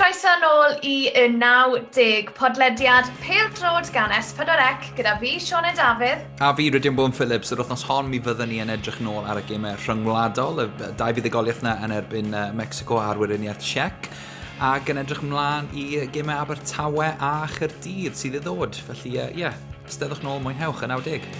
Croeso nôl i y 90 podlediad Pêl-droed gan S4C gyda fi, Sioned Dafydd. A fi, Rhydian Bowen Phillips. Yr wythnos hon mi fyddwn ni yn edrych nôl ar y gemau rhyngwladol, y dau fuddugoliaeth yna yn erbyn Mexico a'r Weriniaeth Czech, ac yn edrych ymlaen i gemau Abertawe a Chaerdydd sydd i ddod. Felly, ie, yeah, steddwch nôl, mwynhewch y 90.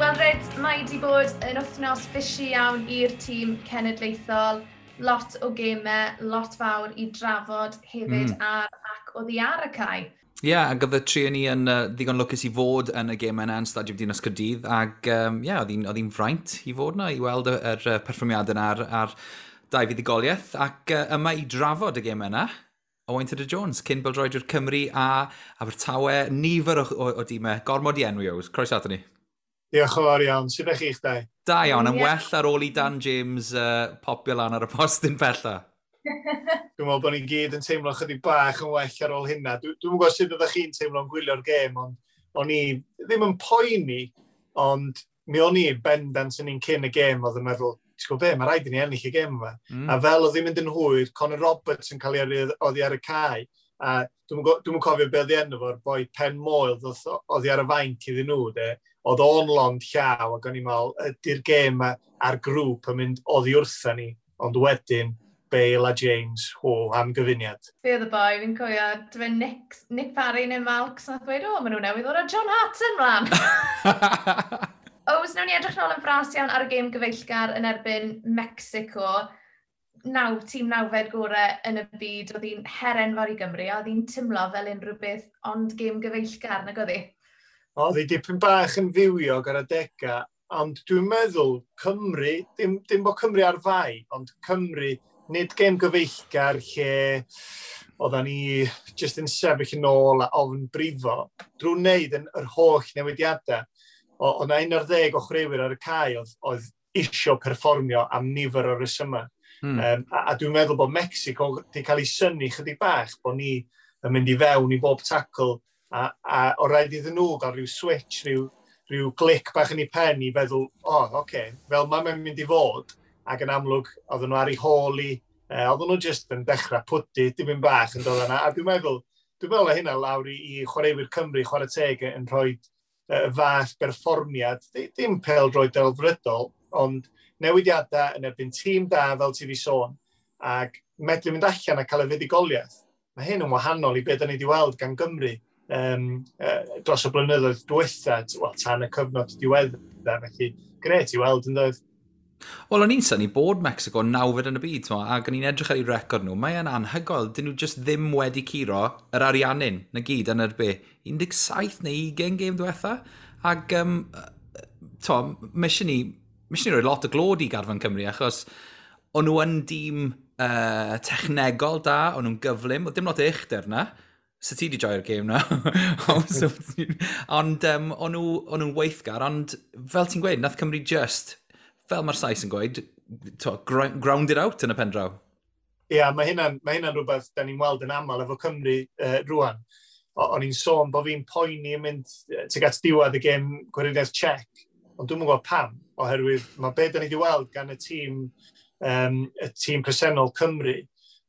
Wel, Ryd, mae wedi bod yn wythnos busy iawn i'r tîm cenedlaethol. Lot o gemau, lot fawr i drafod hefyd ar ac oddi ar y cae. Ie, yeah, ac oedd y tri o ni yn ddigon lwcus i fod yn y gemau yna yn Stadiwm Dinas Caerdydd, ac yeah, oedd hi'n fraint i fod yna, i weld yr perfformiadau yna ar dau fuddugoliaeth, ac yma i drafod y gemau yna, Owain Tudur Jones, cyn bêl-droediwr Cymru a Abertawe, nifer o dimau, gormod i enwi oes. Croeso ato ni. Diolch yn fawr iawn. Sut ydych chi'ch dau? Da iawn, yn well ar ôl i Dan James popio lan ar y postyn pella. Dwi'n meddwl bod ni'n gyd yn teimlo chydig bach yn well ar ôl hynna. Dwi'n gwybod sut ydych chi'n teimlo'n gwylio'r gêm, ond o'n i ddim yn poeni, ond mi o'n i bendant yn un cyn y gêm oedd yn meddwl, ti'n gwybod be, mae rhaid i ni ennill y gêm yma. A fel oedd hi'n mynd yn hwyr, Conor Roberts yn cael ei yrru oddi ar y cae, a dwi'm cofio be oedd ei enw fo'r boi Pen Moel oddi ar y fainc iddyn nhw, de. Oedd o'n lond llaw, ac o'n i'n meddwl, ydy'r gêm yma a'r grŵp yn mynd oddi wrtha ni, ond wedyn Bale a James, ho, am gyfuniad. Be oedd y boi, fi'n cofio, dyfe Nick Parry neu Malks, nath dweud, o, maen nhw newydd ddod â John Hartson mlaen. Ows, nawn ni edrych nôl yn fras iawn ar y gêm gyfeillgar yn erbyn Mexico. Tîm nawfed gorau yn y byd, oedd hi'n her enfawr i Gymru, a oedd hi'n teimlo fel unrhyw beth ond gêm gyfeillgar, nag oedd hi? Oedd hi dipyn bach yn fywiog ar adegau, ond dwi'n meddwl Cymru, dim bod Cymru ar fai, ond Cymru, nid gêm gyfeillgar lle oeddan ni jyst yn sefyll yn ôl a ofn brifo, drwy wneud yn yr holl newidiadau. Oedd 'na 11 o chwaraewyr ar y cae oedd isio perfformio am nifer o resymau. A dwi'n meddwl bod Mexico wedi cael ei synnu chydig bach bod ni yn mynd i fewn i bob tackle a o rhaid iddyn nhw gael rhyw switch, rhyw clic bach yn ei pen i feddwl, o, oh, oce, okay, fel mae'n mynd i fod, ac yn amlwg oedden nhw ar ei hôl i, oedden nhw jyst yn dechrau pwdu, dim yn bach yn dod yna, a dwi'n meddwl o hynna lawr i chwaraewyr Cymru, chwarae teg, yn rhoi fath berfformiad, dim pêl-droed delfrydol, ond newidiadau yn erbyn tîm da, fel ti fi sôn, ac medru mynd allan a cael y fuddugoliaeth. Mae hyn yn wahanol i beth da ni wedi weld gan Gymru dros y blynyddoedd diwetha, wel, tan y cyfnod diweddar, felly grêt i weld yn dod. Wel, o'n i'n synnu bod Mexico nawfed yn y byd, t'mo, ac o'n i'n edrych ar eu record nhw, mae e'n anhygoel, dyn nhw just ddim wedi curo yr Ariannin, na gyd, yn yr be, 17 neu 20 gêm diwetha, ac t'mo, mae eisiau ni roi lot o glod i garfan Cymru, achos o'n nhw yn dîm technegol da, o'n nhw'n gyflym, oedd dim lot o uchder na. So ti di joio'r gêm na. Ond o'n nhw'n weithgar, ond fel ti'n gweud, nath Cymru just, fel mae'r Sais yn gweud, ground it out yn y pen draw. Ie, yeah, mae hynna'n rhywbeth da ni'n weld yn aml efo Cymru rwan. O'n i'n sôn bod fi'n poeni yn mynd tuag at diwedd y gêm Gweriniaeth Czech, ond dwi'm yn gwybod pam, oherwydd mae be da ni wedi weld gan y tîm presennol Cymru,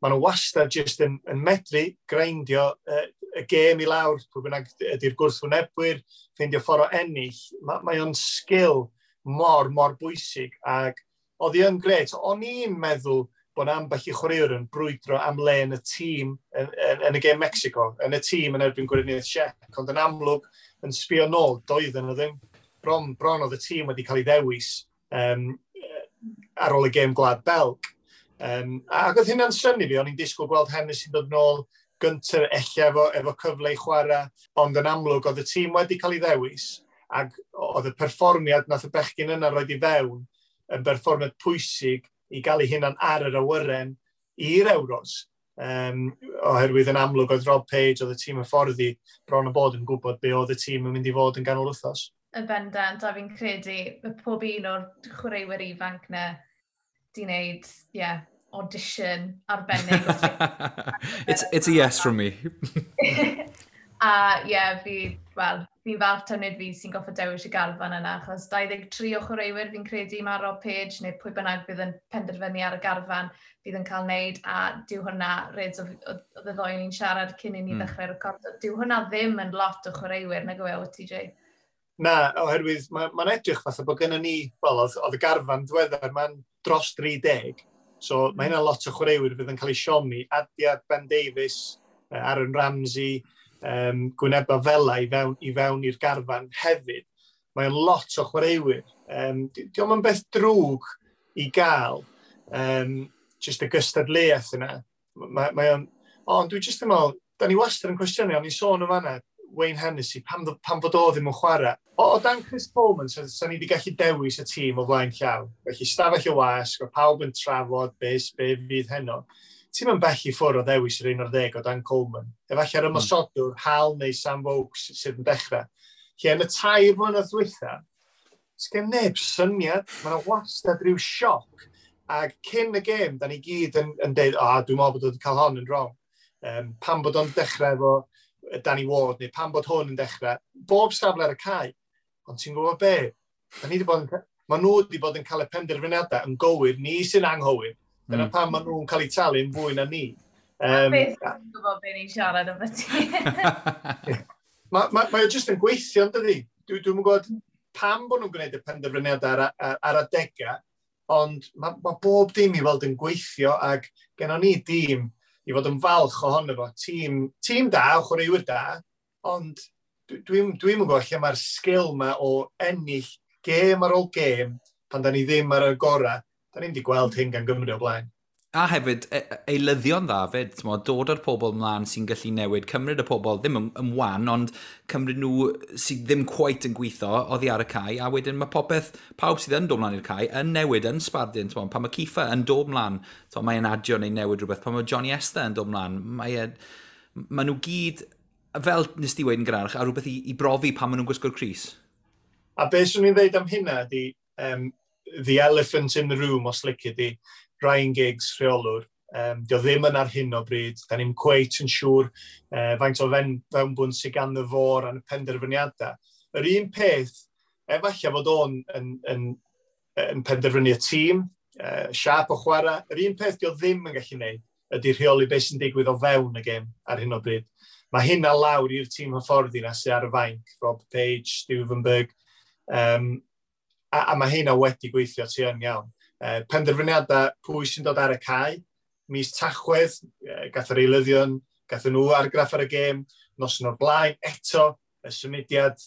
maen nhw wastad jyst yn medru greindio y gêm i lawr, pwy bynnag ydy'r gwrthwynebwyr, ffeindio ffordd o ennill. Mae o'n sgil mor, mor bwysig, ac oedd hi yn grêt. O'n i'n meddwl bod ambell i chwaraewr yn brwydro am le yn y tîm yn y gêm Mexico, yn y tîm yn erbyn Gweriniaeth Czech, ond yn amlwg yn sbio nôl, doedden nhw ddim. Bron oedd y tîm wedi cael ei ddewis ar ôl y gêm Gwlad Belg. Ac oedd hynna'n synnu fi, o'n i'n disgwyl gweld Hennessy dod nôl gyntaf ella efo cyfle i chwarae, ond yn amlwg oedd y tîm wedi cael ei ddewis, ac oedd y perfformiad nath y bechgyn yna roed i fewn yn berfformiad pwysig i gael ei hunan ar yr awyren i'r Euros. Oherwydd yn amlwg oedd Rob Page, oedd y tîm hyfforddi bron o bod yn gwybod be oedd y tîm yn mynd i fod yn ganol wythnos. Y bendant, a fi'n credu pob un o'r chwaraewyr ifanc na di wneud, yeah, audition arbennig. It's a yes from me. A ie, yeah, fi, wel, Fi'n falch taw nid fi sy'n gorfod dewis y garfan yna, achos 23 o chwaraewyr fi'n credu mae Rob Page, neu pwy bynnag bydd yn penderfynu ar y garfan bydd yn cael wneud, a dyw hwnna, Reds, oedd y ddoi ni'n siarad cyn i ni ddechrau recordo, dyw hwnna ddim yn lot o chwaraewyr, nag yw e, OTJ? Na, oherwydd mae'n ma edrych fatha bod gennym ni, wel, oedd y garfan diweddar, mae'n dros 30, so mae hynna lot o chwaraewyr fydd yn cael ei siomi. Adia, Ben Davies, Aaron Ramsey, gwyneba fela i fewn i'r garfan hefyd. Mae'n lot o chwaraewyr. Diolch yn beth drwg i gael just y gystadleuaeth yna. Mae o'n, ond dwi jyst yn meddwl, da ni wastad yn cwestiynu, ond ni'n sôn o fanna, Wayne Hennessy, pam fod o ddim yn chwarae? O dan Chris Coleman, sa ni wedi gallu dewis y tîm o flaen llaw. Felly stafell y wasg, o pawb yn trafod be fydd heno. Ti'n mynd bell i ffwrdd o ddewis yr 11 o dan Coleman. Efallai'r ymosodwr, Hal neu Sam Vokes sydd yn dechrau. Lle yn y 3 mlynedd dwytha, sgen neb syniad, mae yna wastad rhyw sioc. Ac cyn y gêm, da ni gyd yn deud, "O, oh, dwi'n meddwl bod wedi cael hon yn wrong." Pam bod o'n dechrau efo Danny Ward, neu pam bod hwn yn dechrau. Bob safle ar y cae. Ond ti'n gwybod be? Da ni wedi bod yn, mae nhw wedi bod yn cael y penderfyniadau yn gywir, ni sy'n anghywir. Dyna pam maen nhw'n cael eu talu'n fwy na ni. Beth ti'n gwybod beth ni'n siarad am ti? Mae o jyst yn gweithio, yn dydi? Dwi'n gwybod pam bod nhw'n gwneud y penderfyniadau ar adegau, ond mae bob dim i weld yn gweithio ac gennon ni dîm i fod yn falch ohono fo. Tîm da, chwaraewyr da, ond dwi'n gwybod lle mae'r sgil ma o ennill gêm ar ôl gêm pan da ni ddim ar y gorau. Da ni'n wedi gweld hyn gan Gymru o blaen. A hefyd, eilyddion dda fyd, t'mo, dod â'r pobl mlaen sy'n gallu newid, cymryd y pobl ddim yn wan, ond cymryd nhw sydd ddim quite yn gweithio oddi ar y cae, a wedyn mae popeth, pawb sydd yn dod mlaen i'r cae, yn newid, yn sbardun, t'mo, pan mae Kieffer yn dod mlaen, t'mo, mae'n adio neu newid rhywbeth, pan mae Johnny Esther yn dod mlaen, mae nhw gyd, fel nes di weud yn gynharach, a rhywbeth i brofi pan maen nhw'n gwisgo'r crys. A beth swn i'n dweud am hynna ydi, the elephant in the room, os lici di, Ryan Giggs, rheolwr. Dio ddim yn ar hyn o bryd. Da ni'n cweit yn siŵr faint o fewnbwn sydd gan y fo ran y penderfyniadau. Yr un peth, efallai fod o'n yn penderfynu y tîm, siap o chwarae, yr un peth dio ddim yn gallu gwneud ydy rheoli beth sy'n digwydd o fewn y gêm ar hyn o bryd. Mae hynna lawr i'r tîm hyfforddi na sydd ar y fainc, Rob Page, Stuivenberg, a mae hynna wedi gweithio ti yn iawn. Penderfyniadau pwy sy'n dod ar y cae, mis Tachwedd, gath yr eilyddion, gath nhw argraff ar y gêm, noson o'r blaen, eto, y symudiad,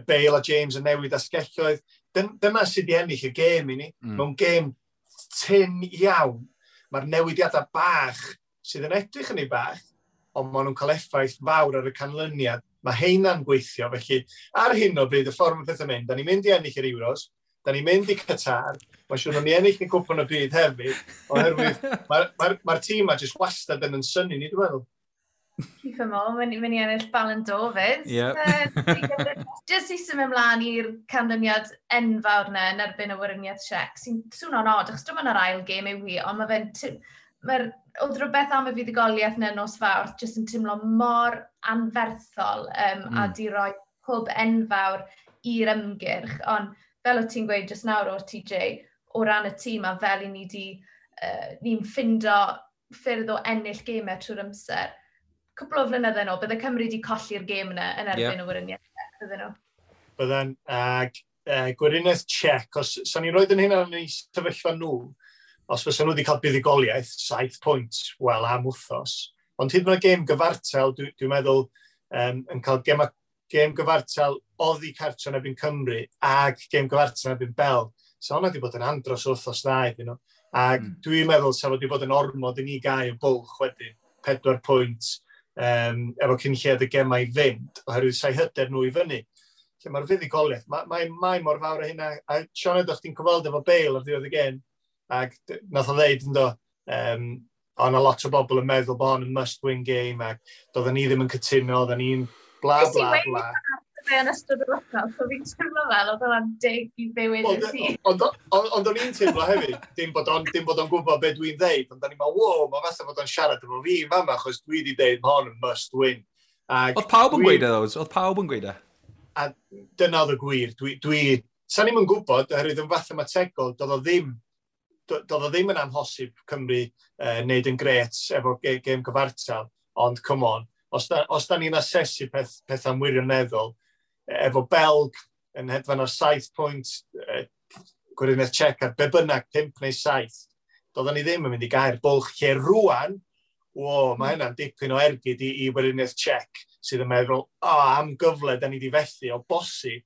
Bale a James yn newid asgelloedd. Dyna sydd wedi ennill y gêm i ni. Mewn gêm tyn iawn, mae'r newidiadau bach sydd yn edrych yn ei bach, ond maen nhw'n cael effaith fawr ar y canlyniad. Mae heina'n gweithio, felly ar hyn o bryd, y ffordd mae pethau'n mynd, da ni'n mynd i ennill yr Euros, da ni'n mynd i Qatar, mae'n siŵr ni ennill y cwpan y byd hefyd, oherwydd mae'r ma tîm ma jyst wastad yn synnu ni, dwi'n meddwl. Kieffer Moore, mynd i ennill Ballon d'Or fyd. Yep. Jyst i symud ymlaen i'r canlyniad enfawr na yn erbyn y Weriniaeth Czech, sy'n swnio'n od, achos dim ond yr ail gêm yw hi, ond mae fe'n... Mae'r, oedd rhywbeth am y fuddugoliaeth na nos Fawrth jyst yn teimlo mor anferthol a di roi hwb enfawr i'r ymgyrch. Ond fel o ti'n gweud jyst nawr o'r TJ, o ran y tîm a fel i ni di, ni'n ffindo ffyrdd o ennill gemau trwy'r amser. Cwpl o flynydde nôl, bydde Cymru wedi colli'r gêm yna yn erbyn y Weriniaeth, bydden nhw. Bydden, ag Gweriniaeth Czech, os sa'n ni'n rhoi yn hynna yn ei sefyllfa nhw, os fysa nhw wedi cael buddugoliaeth, 7 pwynt, wel, am wythnos. Ond hyd yn oed gêm gyfartal, dwi meddwl, yn cael gêm gyfartal oddi cartre yn erbyn Cymru ag gêm gyfartal yn erbyn Belg. So hwnna wedi bod yn andros o wythnos dda iddyn nhw. Ac dwi'n meddwl sa fod wedi bod yn ormod i ni gael y bwlch wedyn, 4 pwynt, efo cyn lled y gemau i fynd, oherwydd sa'i hyder nhw i fyny. Lle mae'r fuddugoliaeth, mae mor fawr o hynna. A Sioned, o'ch ti'n cyfweld efo Bale ar ddiwedd y gêm, ac nath o ddeud ynddo, o na lot o bobl yn meddwl bod hon yn must-win game, ac doedden ni ddim yn cytuno, oedden ni'n bla bla bla. Fe yn ystod yr wythnos, so fi'n teimlo fel oedd hwnna'n dig i bywyd i ti. Ond o'n i'n teimlo hefyd, dim bod o'n gwybod beth dwi'n ddeud, ond o'n i'n meddwl, wow, mae fatha bod o'n siarad efo fi fama, achos dwi wedi deud ma hon yn must win. Ag Oedd pawb yn gweud e, those? Oedd pawb yn gweud e? A dyna oedd y gwir. Sa'n ni'm yn gwybod, oherwydd yn fathemategol, doedd o ddim yn amhosib Cymru wneud yn gret efo gêm gyfartal, ond come on, os da ni'n asesu pethau'n wirioneddol, efo Belg yn hedfan ar 7 pwynt, Gweriniaeth Czech ar be bynnag, 5 neu 7, doedden ni ddim yn mynd i gau'r bwlch lle rwan, wo, mae hynna'n dipyn o ergyd i Weriniaeth Czech sydd yn meddwl, o, oh, am gyfle da ni wedi fethu o bosib,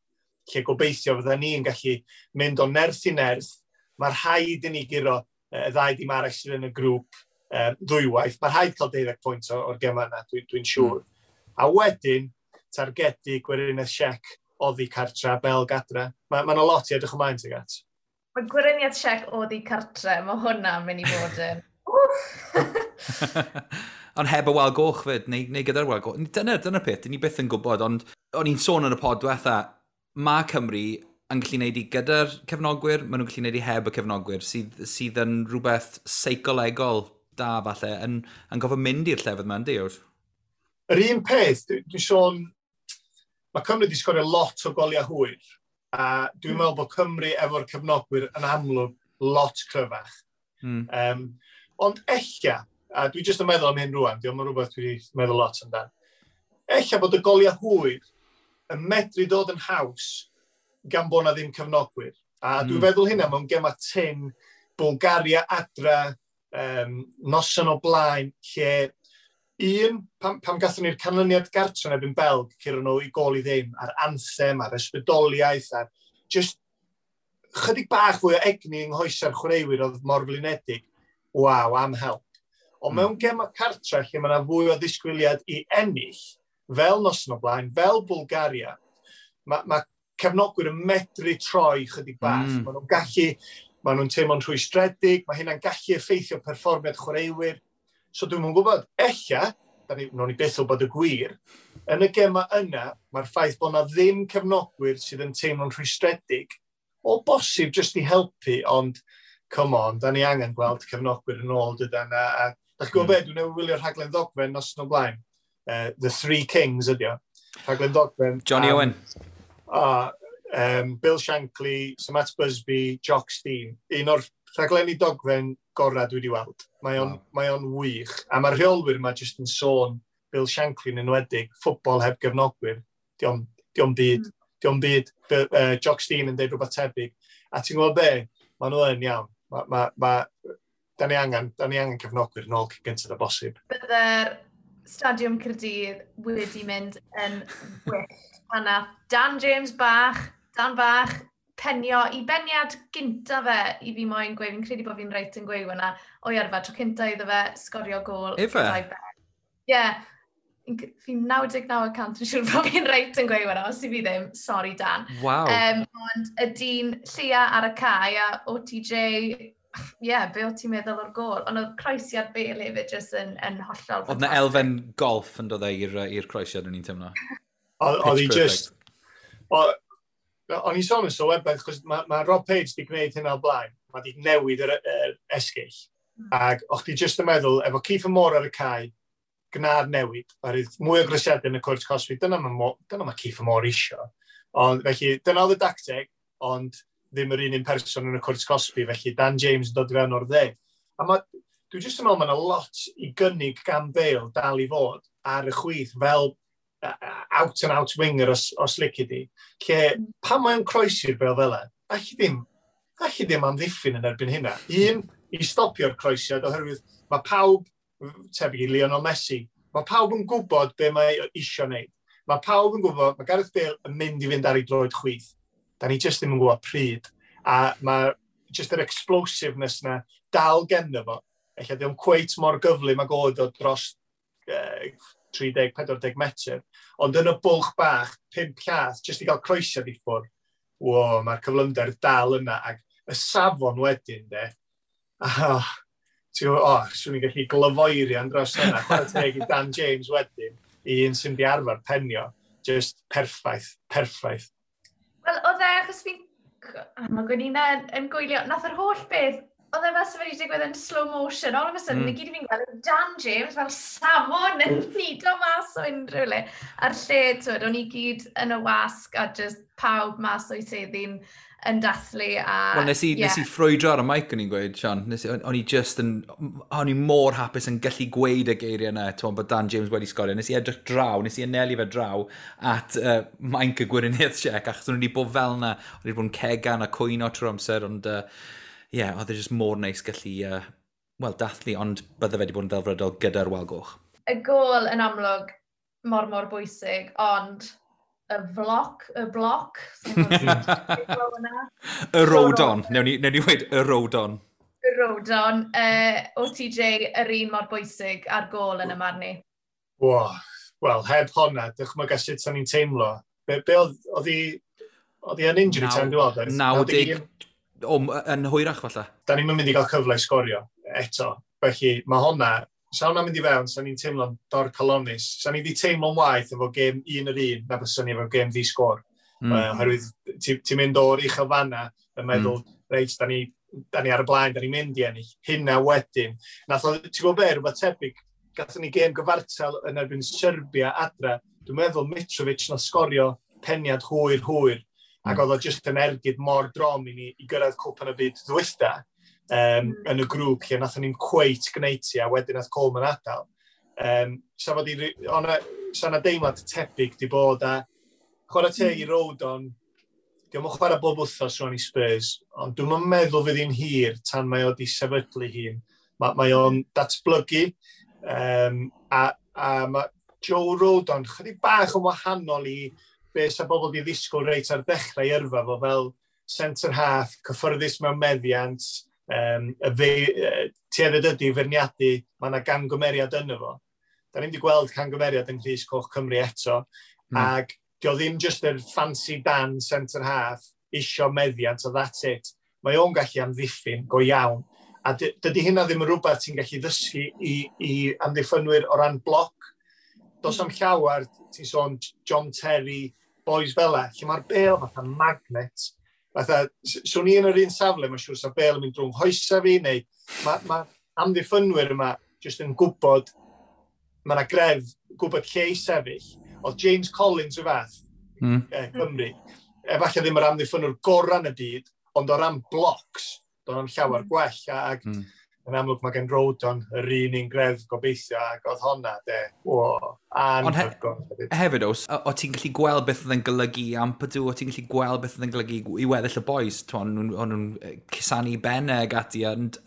lle gobeithio fydda ni'n gallu mynd o nerth i nerth. Mae rhaid i ni guro y ddau dim arall sydd yn y grŵp ddwywaith. Mae rhaid cael 12 pwynt o'r gema yna, dwi siŵr. A wedyn, targedu Gweriniaeth Czech oddi cartra, Belg adra. Mae ma lot i edrych ymlaen tuag at. Mae Gweriniaeth Czech oddi cartre, mae hwnna'n mynd i fod yn... Ond heb y wal goch fyd, neu gyda'r wal goch. Dyna peth, dyn ni byth yn gwybod, ond o'n i'n sôn yn y pod diwetha, mae Cymru yn gallu gwneud i gyda'r cefnogwyr, maen nhw'n gallu gwneud i heb y cefnogwyr, sydd yn rhywbeth seicolegol da falle, yn gofod mynd i'r llefydd yma, yndi? Yr un peth, dwi'n sôn, mae Cymru wedi sgorio lot o goliau hwyr, a dwi'n meddwl bod Cymru efo'r cefnogwyr yn amlwg lot cryfach. Ond ella, a dwi jyst yn meddwl am hyn rwan, diolch yn rhywbeth dwi wedi meddwl lot amdan, ella bod y goliau hwyr yn medru dod yn haws gan bod na ddim cefnogwyr. A dwi'n feddwl hynna mewn gema tyn, Bulgaria adra, noson o blaen, lle un, pam gathon ni'r canlyniad gartre yn erbyn Belg, curo nhw i gol i ddim, a'r anthem, a'r ysbrydoliaeth, a'r just chydig bach fwy o egni yng nghoesa'r chwaraewyr oedd mor flinedig. Waw, am help. Ond mewn gema cartre lle mae yna fwy o ddisgwyliad i ennill, fel noson o blaen, fel Bulgaria, mae cefnogwyr yn medru troi chydig bach. Maen nhw'n gallu, maen nhw'n teimlo'n rhwystredig, mae hynna'n gallu effeithio perfformiad chwaraewyr. So dwi'm yn gwybod, ella, da ni, nawn ni byth wybod y gwir, yn y gema yna, mae'r ffaith bod yna ddim cefnogwyr sydd yn teimlo'n rhwystredig, o bosib jyst i helpu, ond come on, da ni angen gweld cefnogwyr yn ôl dydan. A da chi'n gwybod be, dwi'n newydd wylio'r rhaglen ddogfen nos o blaen. The Three Kings ydi o. Rhaglen ddogfen. Johnny Owen. Bill Shankly, Sir Matt Busby, Jock Stein. Un o'r rhaglenni dogfen gorau dwi wedi weld. Mae o'n mae o'n wych. A mae'r rheolwyr yma jyst yn sôn, Bill Shankly yn enwedig, ffwtbol heb gefnogwyr. Dio'm byd. Dio'm byd. Jock Stein yn deud rhywbeth tebyg. A ti'n gwybod be? Maen nhw yn iawn. Ma, da ni angen cefnogwyr yn ôl cyn gyntaf â bosib. Bydde'r Stadiwm Caerdydd wedi mynd yn wyllt pan nath Dan James bach, Dan bach, penio i beniad gynta fe i fi moyn gweud, fi'n credu bod fi'n reit yn gweud hwnna, o'i arfer, tro cynta iddo fe sgorio gôl. Ife? Gyda'i ben. Ie, yeah, fi'n 99% yn siŵr bod fi'n reit yn gweud hwnna, os i fi ddim, sorry Dan. Waw. Ond y dyn lleia ar y cae a OTJ, ie, yeah, be o ti'n meddwl o'r gôl? Ond oedd croesiad Bale hefyd jyst yn hollol Oedd na elfen golf yn dod e i'r croesiad o'n i'n teimlo. Oedd hi just... O'n i'n sôn yn sylwebaeth, chos ma Rob Page wedi gwneud hynna o blaen. Mae wedi newid yr esgyll. Ac o'ch ti just yn meddwl, efo Kieffer Moore ar y cae, gna'r newid. Oherwydd mwy o groesiadau yn y cwrt cosbi, dyna ma Kieffer Moore isio. Ond felly, dyna oedd y dacteg, ond ddim yr un person yn y cwrt cosbi, felly Dan James yn dod i fewn o'r dde. A dwi jyst yn meddwl mae yna lot i gynnig gan Bale dal i fod ar y chwith fel out and out winger os lici di. Lle, pan mae'n croesi'r bêl fel e, allu ddim amddiffyn yn erbyn hynna. Un, i stopio'r croesiad, oherwydd mae pawb, tebyg i Lionel Messi, mae pawb yn gwybod be mae isio wneud. Mae pawb yn gwybod, mae Gareth Bale yn mynd i fynd ar ei droed chwith. Da ni jyst ddim yn gwybod pryd. A mae jyst yr explosiveness na dal genddo fo. Ella ddim cweit mor gyflym ag oedd o dros 30-40 metr. Ond yn y bwlch bach, 5 llath, jyst i gael croesiad i ffwrdd, wo, mae'r cyflymder dal yna. Ac y safon wedyn, de, ah, ti'n gwybod, oh, swn i'n gallu glyfoerian dros yna. Chwarae teg i Dan James wedyn, i un sy'n di arfer penio. Just perffaith, perffaith. Wel, oedd e, achos fi'n... Mae Gwenina yn gwylio, nath yr holl beth Oedd e fel sef wedi digwydd yn slow motion, all of a sudden, i gyd i fi'n gweld Dan James fel salmon yn nido mas o unrhyw le. A'r lle, twyd, o'n i gyd yn y wasg a just pawb mas o'i seddi'n yn dathlu. A, Wel, nes i, yeah. Nes i ffrwydro ar y mic o'n i'n gweud, Sean. Nes, o'n i just yn... O'n i mor hapus yn gallu gweud y geiriau yna, ti'n bod Dan James wedi sgorio. Nes i edrych draw, nes i anelu fe draw at mainc y Gweriniaeth Tsiec, achos o'n i wedi bod fel yna, o'n i wedi bod yn cegan a cwyno trwy'r amser, ond yeah, oedd e just mor neis gallu, wel, dathlu, ond bydde fe wedi bod yn ddelfrydol gyda'r wal goch. Y gol yn amlwg mor mor bwysig, ond y floc, y bloc. Y Rodon. Newn ni weud y Rodon. Y Rodon. OTJ, yr un mor bwysig ar gol yn y marn i. Wow. Wel, heb honna, dychmyga sut sa'n ni'n teimlo. Be oedd hi yn injury time, dwi'n meddwl? 90, o, yn hwyrach falle. Da ni'n mynd i gael cyfle i sgorio eto. Felly, mae honna, sa hwnna'n mynd i fewn, sa ni'n teimlo'n dorcalonnus. Sa ni wedi teimlo'n waeth efo gêm 1-1 na fysa ni efo gêm ddi-sgôr. Oherwydd ti'n ti mynd o'r uchel fanna yn meddwl, reit, da ni ar y blaen, da ni'n mynd i ennill. Hynna wedyn. Nath o, ti'n gwybod be, rhywbeth tebyg, gathon ni gêm gyfartal yn erbyn Serbia adra. Dwi'n meddwl Mitrovic nath sgorio peniad hwyr hwyr. Ac oedd o jyst yn ergyd mor drom i ni i gyrraedd Cwpan y Byd ddwytha yn y grŵp lle nathon ni'n cweit gwneud ti a wedyn nath Coleman adael. Sa fod i, o'na, sa na deimlad tebyg di bod a chwarae teg i Rodon, dio'm yn chwarae bob wythnos rwan i Spurs, ond dwi'n meddwl fydd hi'n hir tan mae o di sefydlu hun. Mae o'n datblygu, a mae Joe Rodon chydig bach yn wahanol i be sa bobl di ddisgwyl reit ar ddechrau yrfa fo fel centre half, cyffyrddus mewn meddiant, y fe, tuedded ydy feirniadu, mae yna gangymeriad yno fo. Da ni'n wedi gweld cangymeriad yng Nghrys Coch Cymru eto, ac dio ddim just yr fancy Dan centre half, isio meddiant, a that's it. Mae o'n gallu amddiffyn go iawn. A dydy hynna ddim yn rhywbeth ti'n gallu ddysgu i amddiffynwyr o ran bloc. Does am llawer, ti'n sôn John Terry, boys fel e, lle mae'r bel fatha magnet. Fatha, swn i yn yr un safle, mae'n siŵr sa bel yn mynd drwy'n hoesa fi, neu mae ma amddiffynwyr yma jyst yn gwybod, mae yna gref, gwybod lle i sefyll. Oedd James Collins y fath, Cymru, efallai ddim yr amddiffynwr gorau yn y byd, ond o ran blocs, doedd am llawer gwell, ac yn amlwg mae gen Rodon yr un un gref gobeithio, ac oedd honna, de, o, anhygoel. Ond hefyd, os, o ti'n gallu gweld beth oedd yn golygu i Ampadu, o ti'n gallu gweld beth oedd yn golygu i weddill y boys, o'n nhw'n cusanu bennau ag ati, ond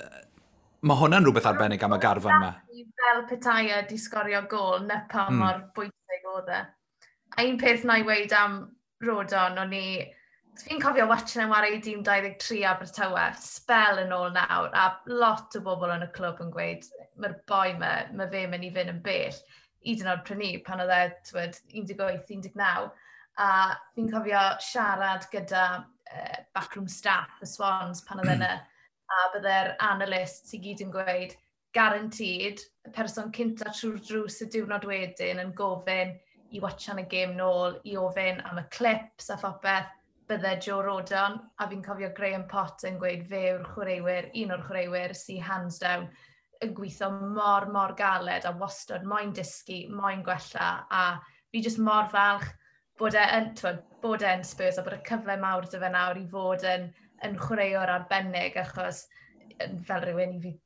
mae hwnna'n rhywbeth arbennig am y garfan yma. Fel petai e di sgorio gol, na pa mor bwysig oedd e. A un peth na i weud am Rodon, o'n i... Fi'n cofio watching yn wario i dîm 23 Abertawe, spel yn ôl nawr, a lot o bobl yn y clwb yn gweud, mae'r boi ma, mae fe mynd i fynd yn bell. Hyd yn oed prynu pan oedd e, twyd, 18, 19. A fi'n cofio siarad gyda backroom staff y Swans pan oedd e yna, a bydde'r analysts i gyd yn gweud, guaranteed, y person cynta trwy'r drws y diwrnod wedyn yn gofyn i watchan y gêm nôl, i ofyn am y clips a phopeth, bydde Joe Rodon, a fi'n cofio Graham Potter yn gweud fe yw'r chwaraewyr, un o'r chwaraewyr sy'n hands down yn gweithio mor, mor galed a wastad moyn dysgu, moyn gwella, a fi jyst mor falch bod e yn, twyd, bod e yn Spurs a bod y cyfle mawr dy fe nawr i fod yn chwaraewr arbennig, achos fel rhywun i fi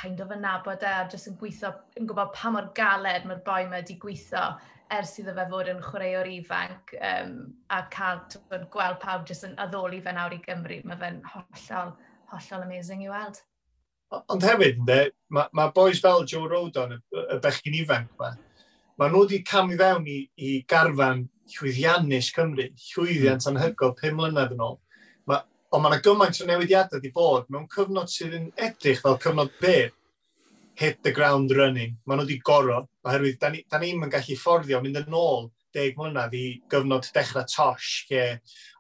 kind of yn nabod e, a jyst yn gweithio, yn gwybod pa mor galed mae'r boi yma wedi gweithio ers iddo fe fod yn chwaraewr ifanc a cael twyd, gweld pawb jyst yn addoli fe nawr i Gymru. Mae fe'n hollol, hollol amazing i weld. Ond hefyd, ynddo, mae ma boys fel Joe Rodon, y bechgyn ifanc yma, mae nhw wedi camu fewn i garfan llwyddiannus Cymru, llwyddiant anhygoel 5 mlynedd yn ôl. Ond mae yna gymaint o newidiadau wedi bod mewn cyfnod sydd yn edrych fel cyfnod byr, hit the ground running. Maen nhw wedi goro, oherwydd da ni'n ni yn gallu fforddio mynd yn ôl 10 mlynedd i gyfnod dechrau Tosh, lle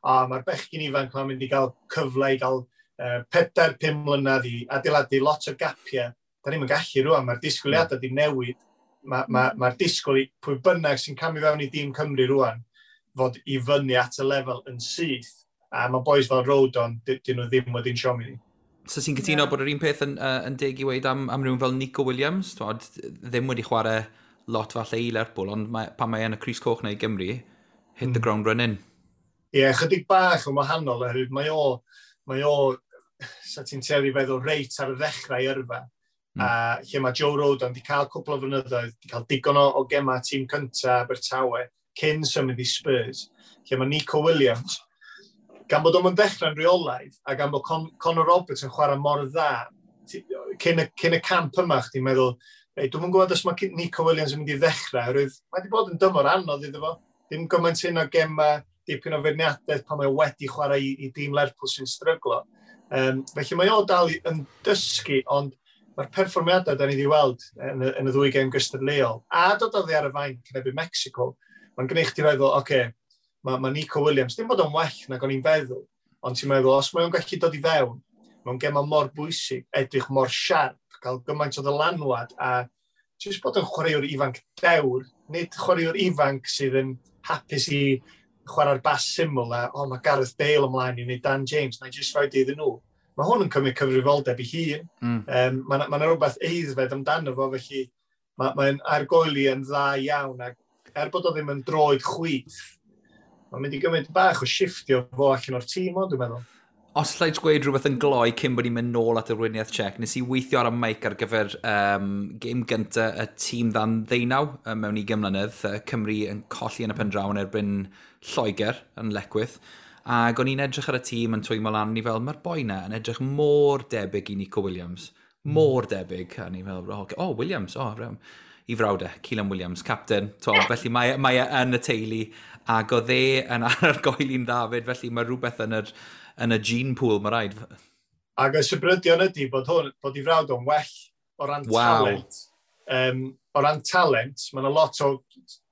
a mae'r bechgyn ifanc ma'n mynd i gael cyfle i gael 4-5 mlynedd i adeiladu lot o gapiau. Da ni'n gallu rwan, mae'r disgwyliadau wedi newid. Mae'r ma disgwyl i pwy bynnag sy'n camu fewn i dîm Cymru rwan fod i fyny at y lefel yn syth. A mae boys fel Rodon, dyn nhw ddim wedi'n siomi ni. So ti'n cytuno bod yr un peth yn deg i weud am rhywun fel Nico Williams? Twod, ddim wedi chwarae lot falle i Lerpwl, ond pan mae yn y crys coch neu Gymru, hit the ground running. Ie, yeah, chydig bach yn wahanol, oherwydd mae o, sa ti'n tueddu feddwl, reit ar y ddechrau yrfa. A lle mae Joe Rodon wedi cael cwpl o flynyddoedd, wedi cael digon o gema tîm cyntaf Abertawe cyn symud i Spurs. Lle mae Nico Williams, gan bod o'n dechrau'n rheolaidd a gan bod Conor Roberts yn chwarae mor dda, cyn y camp yma, chdi'n meddwl, ei, dwi'm yn gwybod os mae Nico Williams yn mynd i ddechrau, oherwydd mae wedi bod yn dymor anodd iddo fo. Dim gymaint hyn o gema, dipyn o feirniadaeth pan mae wedi chwarae i dîm Lerpwl sy'n stryglo. Felly mae o dal yn dysgu, ond mae'r perfformiadau da ni wedi weld yn y ddwy gêm gystadleuol, a dod oddi ar y fainc yn erbyn Mexico, mae'n gwneud chdi feddwl, oce, okay, mae Nico Williams, dim bod o'n well nag o'n i'n feddwl, ond ti'n meddwl, os mae o'n gallu dod i fewn, mewn gema mor bwysig, edrych mor siarp, cael gymaint o ddylanwad, a jyst bod yn chwaraewr ifanc dewr, nid chwaraewr ifanc sydd yn hapus i chwarae'r bas syml a, "O, oh, mae Gareth Bale ymlaen i wneud Dan James, na i jyst rhoi iddyn nhw." Mae hwn yn cymryd cyfrifoldeb i hun. Mae 'na rhywbeth aeddfed amdano fo, felly mae'n argoeli yn dda iawn. Ac er bod o ddim yn droed chwith, mae'n mynd i gymryd bach o shifftio fo allan o'r tîm o, dwi'n meddwl. Os allai gweud rhywbeth yn gloi cyn bod ni'n mynd nôl at y Weriniaeth Czech, nes i weithio ar y mic ar gyfer gêm gyntaf y tîm dan 19 mewn 20 mlynedd, Cymru yn colli yn y pen draw yn erbyn Lloegr yn Lecwydd. Ac o'n i'n edrych ar y tîm yn twymo lan, ni fel, mae'r boi na yn edrych mor debyg i Nico Williams. Mor debyg. A ni fel, oh, okay. Oh, Williams, oh, i frawd e, Calan Williams, captain. To, felly mae e yn y teulu, ac oedd e yn argoeli'n dda fyd, felly mae rhywbeth yn y gene pool, mae rhaid. Ac y sybrydion ydy bod i frawd o'n well o ran talent. O ran talent, mae yna lot o,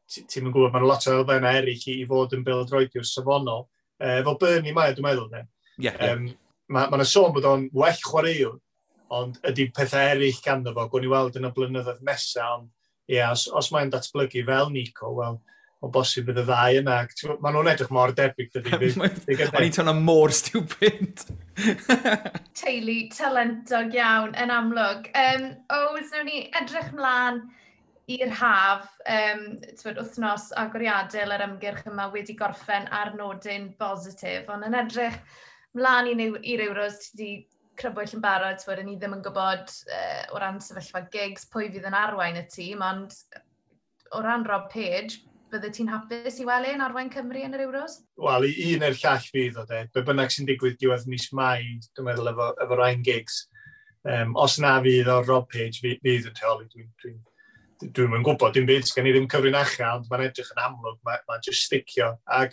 ti'n yn gwybod, mae yna lot o elfennau eraill i fod yn bêl-droediwr safonol. Efo Burnley mae, dwi'n meddwl, ne? Yeah. Mae yna sôn bod o'n well chwaraewr, ond ydy pethau eraill ganddo fo, gwn i weld yn y blynyddoedd nesaf, ond ie, yeah, os mae'n datblygu fel Nico, wel, o bosib bydd y ddau yna. Maen nhw'n edrych mor debyg, dydy. O'n i'n teimlo mor stupid. Teulu talentog iawn yn amlwg. Ows, nawn ni edrych mlaen i'r haf, twyd, wythnos agoriadol yr ymgyrch yma wedi gorffen ar nodyn bositif, ond yn edrych mlaen i'r Euros, ti wedi crybwyll yn barod, twyd, ni ddim yn gwybod o ran sefyllfa Giggs pwy fydd yn arwain y tîm, ond o ran Rob Page, bydde ti'n hapus i weld e'n arwain Cymru yn yr Euros? Wel, i un neu'r llall fydd o, de. Be bynnag sy'n digwydd diwedd mis Mai, dwi'n meddwl, efo Ryan Giggs. Os na fydd o Rob Page fydd yn rheoli, dwi'n yn gwybod dim byd, sgen i ddim cyfrinachau, ond mae'n edrych yn amlwg, mae'n just sticio. Ac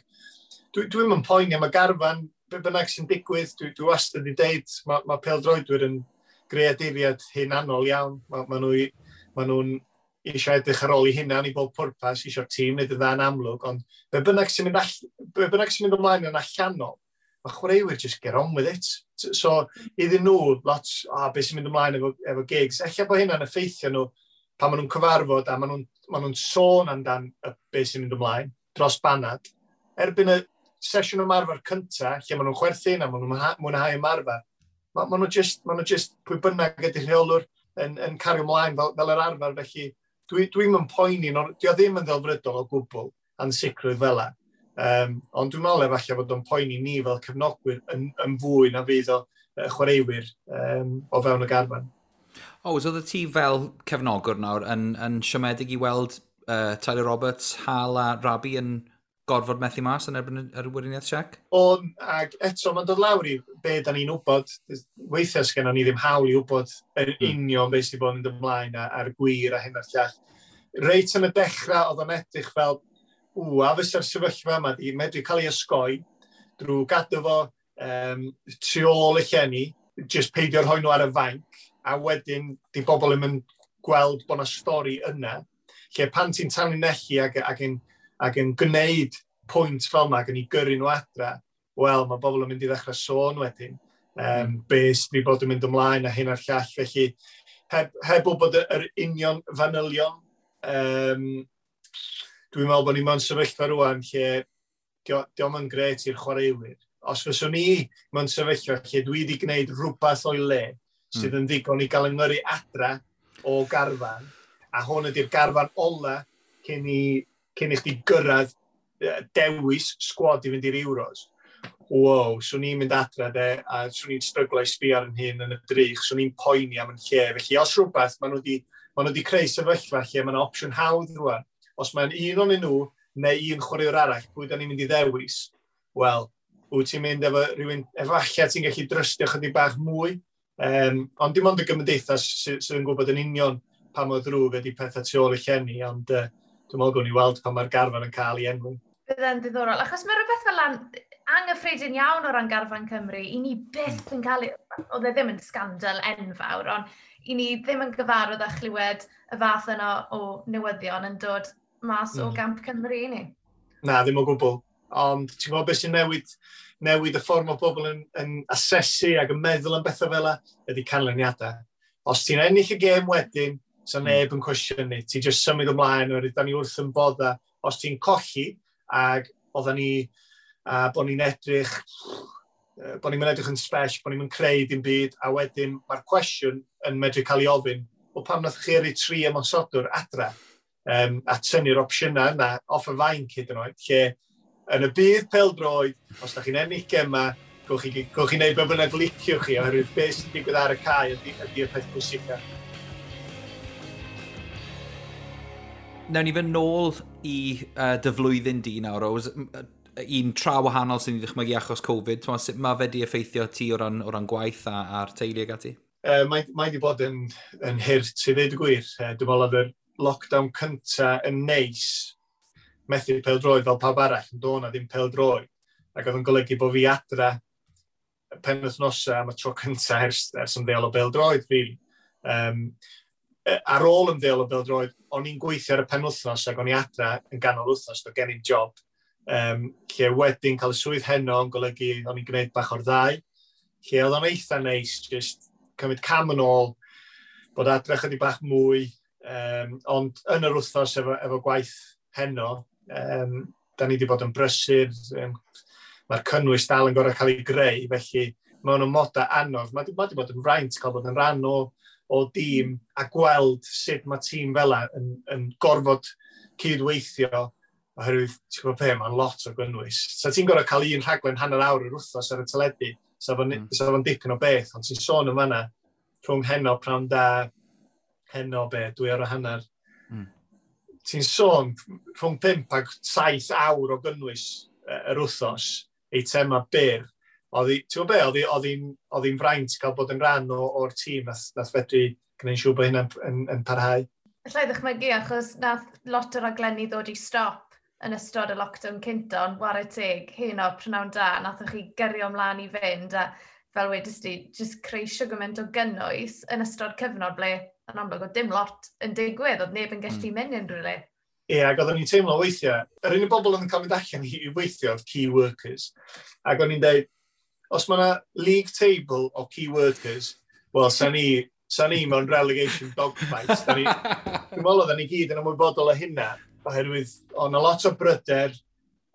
dwi'n yn poeni am y garfan, be bynnag sy'n digwydd, dwi wastad wedi deud, mae pêl-droedwyr yn greaduriad hunanol iawn. Ma nhw'n eisiau edrych ar ôl i hunan i bob pwrpas, eisiau'r tîm wneud yn dda yn amlwg, ond be bynnag sy'n mynd ymlaen yn allanol, mae chwaraewyr just get on with it. So, iddyn nhw, lot, oh, beth sy'n mynd ymlaen efo Giggs, ella bod hynna'n effeithio nhw pan maen nhw'n cyfarfod a maen nhw'n sôn amdan y beth sy'n mynd ymlaen dros banad. Erbyn y sesiwn ymarfer cyntaf, lle maen nhw'n chwerthin a maen nhw'n mwynhau ymarfer, ma nhw just pwy bynnag ydy'r rheolwr yn cario ymlaen fel yr arfer, felly dwi'n mynd poeni, no, di o ddim yn ddelfrydol o gwbl ansicrwydd fel 'a. Ond dwi'n meddwl efallai bod o'n poeni ni fel cefnogwyr yn fwy na fydd o chwaraewyr o fewn y garfan. O, so oedd ti fel cefnogwr nawr yn siomedig i weld Tyler Roberts, Hal a Rabi yn gorfod methu mas yn erbyn yr Weriniaeth Czech? On, ac eto, mae'n dod lawr i be da ni'n wybod. Weithiau sgennon ni ddim hawl i wybod yn union beth sydd wedi bod yn mynd ymlaen a'r gwir a hyn a'r llall. Reit yn y dechrau, oedd o'n edrych fel, ww, a fysa'r sefyllfa yma di medru cael ei osgoi drwy gadw fo tu ôl y llenni, just peidio rhoi nhw ar y fainc, a wedyn di bobl ddim yn gweld bod yna stori yna, lle pan ti'n tanlinellu ac yn gwneud pwynt fel yma ac yn ei gyrru nhw adra, wel, mae bobl yn mynd i ddechrau sôn wedyn. Be sydd wedi bod yn mynd ymlaen a hyn a'r llall. Felly, heb wybod yr union fanylion, dwi'n meddwl bod ni mewn sefyllfa rwan lle di o'm yn gret i'r chwaraewyr, Os fyswn i mewn sefyllfa lle dwi wedi gwneud rhywbeth o'i le sydd yn ddigon i gael yng adra o garfan, a hwn ydy'r garfan ola cyn i chdi gyrraedd dewis sgwad i fynd i'r Euros. Wow, swn i'n mynd adra de, a swn i'n stryglo i sbio ar yn hun yn y drych, swn i'n poeni am yn lle. Felly os rhywbeth, maen nhw wedi creu sefyllfa lle mae yna opsiwn hawdd rwan. Os mae'n un o'n nhw neu un chwaraewr arall, pwy da ni'n mynd i ddewis? Wel, wyt ti'n mynd efo rhywun, efallai ti'n gallu drystio chydig bach mwy, ond dim ond y gymdeithas sydd yn gwybod yn union pa mor ddrwg ydy pethau tu ôl y llenni, ond dwi'n meddwl gwni weld pan mae'r garfan yn cael ei enwi. Bydde'n ddiddorol, achos mae rhywbeth fel anghyffredin iawn o ran garfan Cymru, i ni byth yn cael, oedd e ddim yn scandal enfawr, ond i ni ddim yn gyfarwydd â chlywed y fath yna o newyddion yn dod mas o gamp Cymru i ni. Na, ddim o gwbl. Ond ti'n gwybod beth sy'n newid y ffordd mae bobl yn asesu ac yn meddwl am bethau fel yna, ydy canlyniadau. Os ti'n ennill y gêm wedyn, sa neb yn cwestiynu. Ti'n just symud ymlaen, oherwydd da ni wrth yn bodda. Os ti'n colli, ac oedden ni, a bod ni'n edrych, bod ni'n edrych yn spesh, bod ni'n creu dim byd, a wedyn mae'r cwestiwn yn medru cael ei ofyn, wel, pam nath chi yrru tri ymosodwr adra a tynnu'r opsiynau yna off y fainc hyd yn oed, lle yn y byd pêl-droed, os da chi'n ennill gema, gewch chi wneud be bynnag liciwch chi, oherwydd beth sy'n digwydd ar y cae ydy y peth pwysica. Nawn ni fynd nôl i dy flwyddyn di nawr, Ows. Un tra wahanol sy'n ei ddychmygu achos Covid. T'mo, sut mae fe di effeithio ti o ran gwaith a'r teulu ag ati? Mae wedi bod yn hurt i ddeud y gwir. Dwi'n meddwl oedd yr lockdown cynta yn neis, methu pêl-droed fel pawb arall, yn dod na ddim pêl-droed. Ac oedd yn golygu bod fi adra penwythnosau am y tro cynta ers ymddeol o bêl-droed, really. Ar ôl ymddeol o bêl-droed, o'n i'n gweithio ar y penwythnos ac o'n i adra yn ganol wythnos, doedd gen i'm job. Lle wedyn cael y swydd Heno yn golygu o'n i'n gwneud bach o'r ddau. Lle oedd o'n eitha neis, just cymryd cam yn ôl, bod adre chydig bach mwy, ond yn yr wythnos efo gwaith Heno, da ni wedi bod yn brysur, mae'r cynnwys dal yn gorau cael ei greu, felly mewn amodau anodd, mae 'di bod yn fraint cael bod yn rhan o dîm a gweld sut mae tîm fel yn gorfod cydweithio, oherwydd, ti'n gwybod be, mae'n lot o gynnwys. Sa ti'n gorfod cael un rhaglen hanner awr yr wythnos ar y teledu, sa fo'n dipyn o beth, ond ti'n sôn yn fanna, rhwng Heno, Prawn Da, Heno be, 2 awr a hanner. Ti'n sôn rhwng 5 ag 7 awr o gynnwys yr wythnos, eitema byr. Ti'n gwybod be, oedd hi'n fraint cael bod yn rhan o'r tîm nath fedru gwneud siŵr bod hynna'n yn parhau. Alla i ddychmygu, achos nath lot o raglenni ddod i stop yn ystod y lockdown cynta, ond whare teg, Heno, Prynawn Da, nathoch chi gyrio ymlaen i fynd, a fel wedys di, just creu shwd gymaint o gynnwys yn ystod cyfnod ble, yn amlwg, oedd dim lot yn digwydd, oedd neb yn gallu mynd unrhyw le. Ie, ac oedden ni'n teimlo weithiau, yr unig bobl oedd yn cael mynd allan i weithio oedd key workers. Ac o'n i'n dweud, os mae yna league table o key workers, wel, sa ni mewn relegation dogfight. Dwi'n meddwl oedden ni gyd yn ymwybodol o hynna, oherwydd oedd 'na lot o bryder,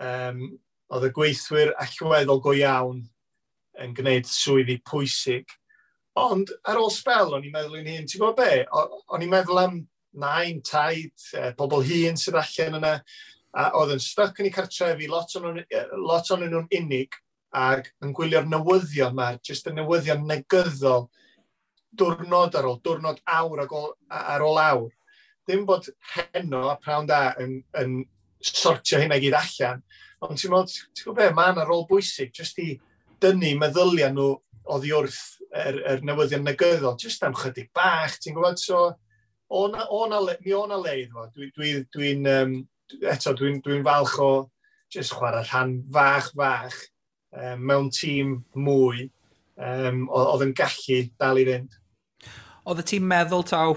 oedd y gweithwyr allweddol go iawn yn gwneud swyddi pwysig. Ond ar ôl sbel, o'n i'n meddwl i'n hun, ti'n gwybod be? O'n i'n meddwl am nain, taid, pobl hŷn sydd allan yna, a oedd yn stuck yn eu cartrefi, lot o'n nhw'n unig, ac yn gwylio'r newyddion yma, jyst y newyddion negyddol, diwrnod ar ôl diwrnod, awr ar ôl awr. Ddim bod Heno a Prawn Da yn sortio hynna i gyd allan, ond ti'n meddwl, ti'n gwybod be, mae yna rôl bwysig, jyst i dynnu meddyliau nhw oddi wrth yr newyddion negyddol, jyst am chydig bach, ti'n gwybod, so mi o na le iddo fo. Eto, dwi falch o jyst chwarae rhan fach fach mewn tîm mwy oedd yn gallu dal i fynd. Oedd y tîm meddwl taw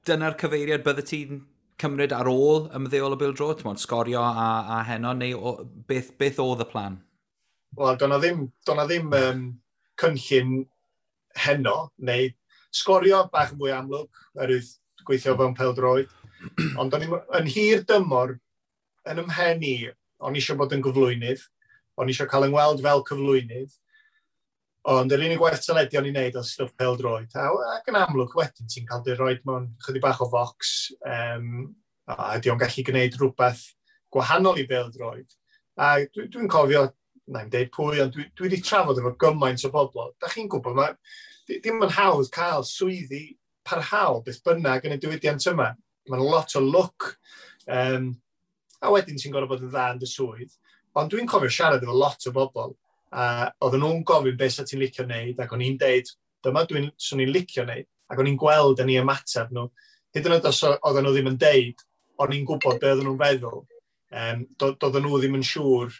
dyna'r cyfeiriad bydde ti'n cymryd ar ôl ymddeol o bêl-droed? Ti'n Sgorio a Heno, neu beth oedd y plan? Wel, do'na ddim cynllun Heno, neu Sgorio bach yn fwy amlwg, oherwydd gweithio fewn pêl-droed. Ond o'n i'n yn hir dymor, yn ymhen i, o'n i eisiau bod yn gyflwynydd, O'n i eisiau cael yng ngweld fel cyflwynydd, ond yr unig waith teledu o'n i'n neud oedd stwff pêl-droed. Ac yn amlwg wedyn ti'n cael dy roed mewn chydig bach o focs, a ydy o'n gallu gwneud rhywbeth gwahanol i bêl-droed. A dwi'n cofio, na i'm deud pwy, ond dwi wedi trafod efo gymaint o bobl. Da chi'n gwybod, mae, dim yn hawdd cael swyddi parhaol beth bynnag yn y diwydiant yma. Mae'n lot o lwc. A wedyn ti'n gorfod bod yn dda yn dy swydd. Ond dwi'n cofio siarad efo lot o bobl, a oedden nhw'n gofyn beth sa ti'n licio wneud, ac o'n i'n deud, dyma dwi'n swn i'n licio wneud, ac o'n i'n gweld yn ei ymateb nhw. Hyd yn oed os oedden nhw ddim yn deud, o'n i'n gwybod be oedden nhw'n feddwl. Doedden nhw ddim yn siŵr.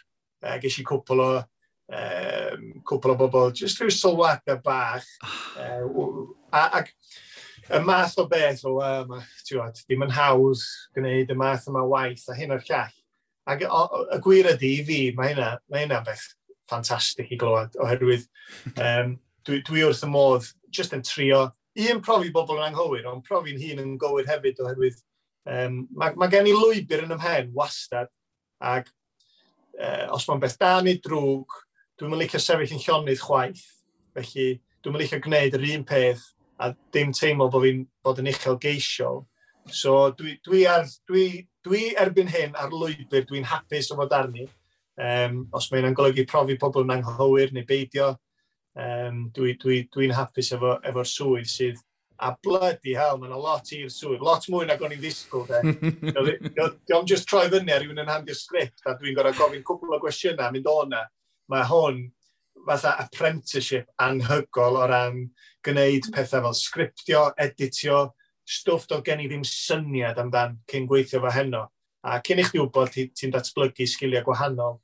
Ges i cwpl o bobl, jyst rhyw sylwadau bach. Ac y math o beth o, ti'n ddim yn hawdd gwneud y math yma waith a hyn o'r llall. Ac y gwir ydy i fi, mae hynna beth ffantastig i glywed, oherwydd dwi wrth y modd jyst yn trio, un, profi bobl yn anghywir, ond profi'n hun yn gywir hefyd, oherwydd mae gen i lwybr yn 'y mhen wastad, ac os mae'n beth da neu drwg, dwi'n licio sefyll yn llonydd chwaith, felly dwi'n licio gwneud yr un peth a dim teimlo bod fi'n bod yn uchelgeisiol. So dwi erbyn hyn ar lwybr dwi'n hapus o fod arni. Os mae hynna'n golygu profi pobl yn anghywir neu beidio, dwi hapus efo'r swydd sydd, a bloody hell, mae'n lot i'r swydd, lot mwy nag o'n i'n ddisgwyl, de. Dio'm just troi fyny ar rhywun yn handio sgript a dwi'n gorfod gofyn cwpl o gwestiynau mynd o'na. Mae hwn fatha apprenticeship anhygoel o ran gwneud pethau fel sgriptio, editio, stwff doedd gen i ddim syniad amdan cyn gweithio fo heno. A cyn i chdi wybod, ti datblygu sgiliau gwahanol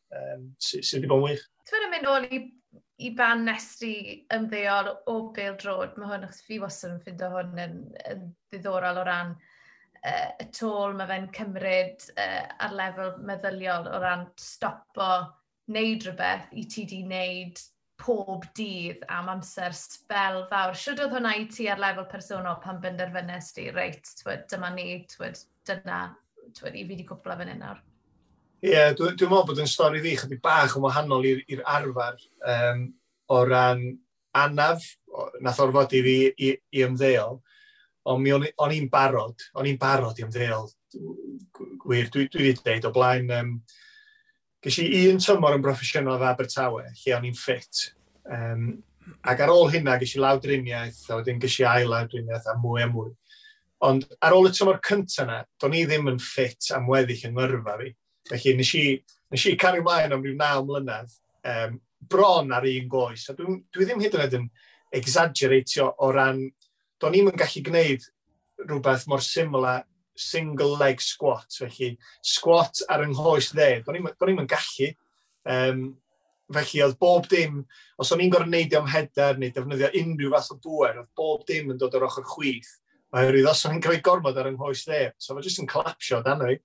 sydd wedi bod yn wych. Ti'n mynd ôl i ban nes ti ymddeol o bêl-droed, mae hwn, achos fi wastad yn ffindo hwn yn ddiddorol o ran y tôl mae fe'n cymryd ar lefel meddyliol o ran stopo wneud rhywbeth i ti di wneud pob dydd am amser sbel fawr. Shwd oedd hwnna i ti ar lefel personol pan benderfynes di, reit, twyd, dyma ni, twyd, dyna, twyd, i fi wedi cwpla fan hyn nawr? Ie, yeah, dwi meddwl bod yn stori fi chydig bach yn wahanol i'r arfer o ran anaf, nath orfod i fi i ymddeol, ond mi o'n i'n barod i ymddeol. Gwir, dwi wedi dweud o blaen, ges i un tymor yn broffesiynol efo Abertawe, lle o'n i'n ffit. Ac ar ôl hynna, ges i lawdriniaeth, a wedyn ges i ail lawdriniaeth a mwy a mwy. Ond ar ôl y tymor cyntaf yna, do'n i ddim yn ffit am weddill yng ngyrfa fi. Felly nes i cario ymlaen am ryw 9 mlynedd, bron ar un goes. A dwi ddim hyd yn oed yn exaggeratio o ran, do'n i'm yn gallu gwneud rhywbeth mor syml â single leg squat. Felly squat ar yng nghoes dde, do'n i'm yn gallu. Felly oedd bob dim, os o'n i'n gorfod neidio am header neu defnyddio unrhyw fath o bwer, oedd bob dim yn dod o'r ochr chwith. Oherwydd os o'n i'n cael gormod ar yng nghoes dde, so fe jyst yn collapsio dan fi.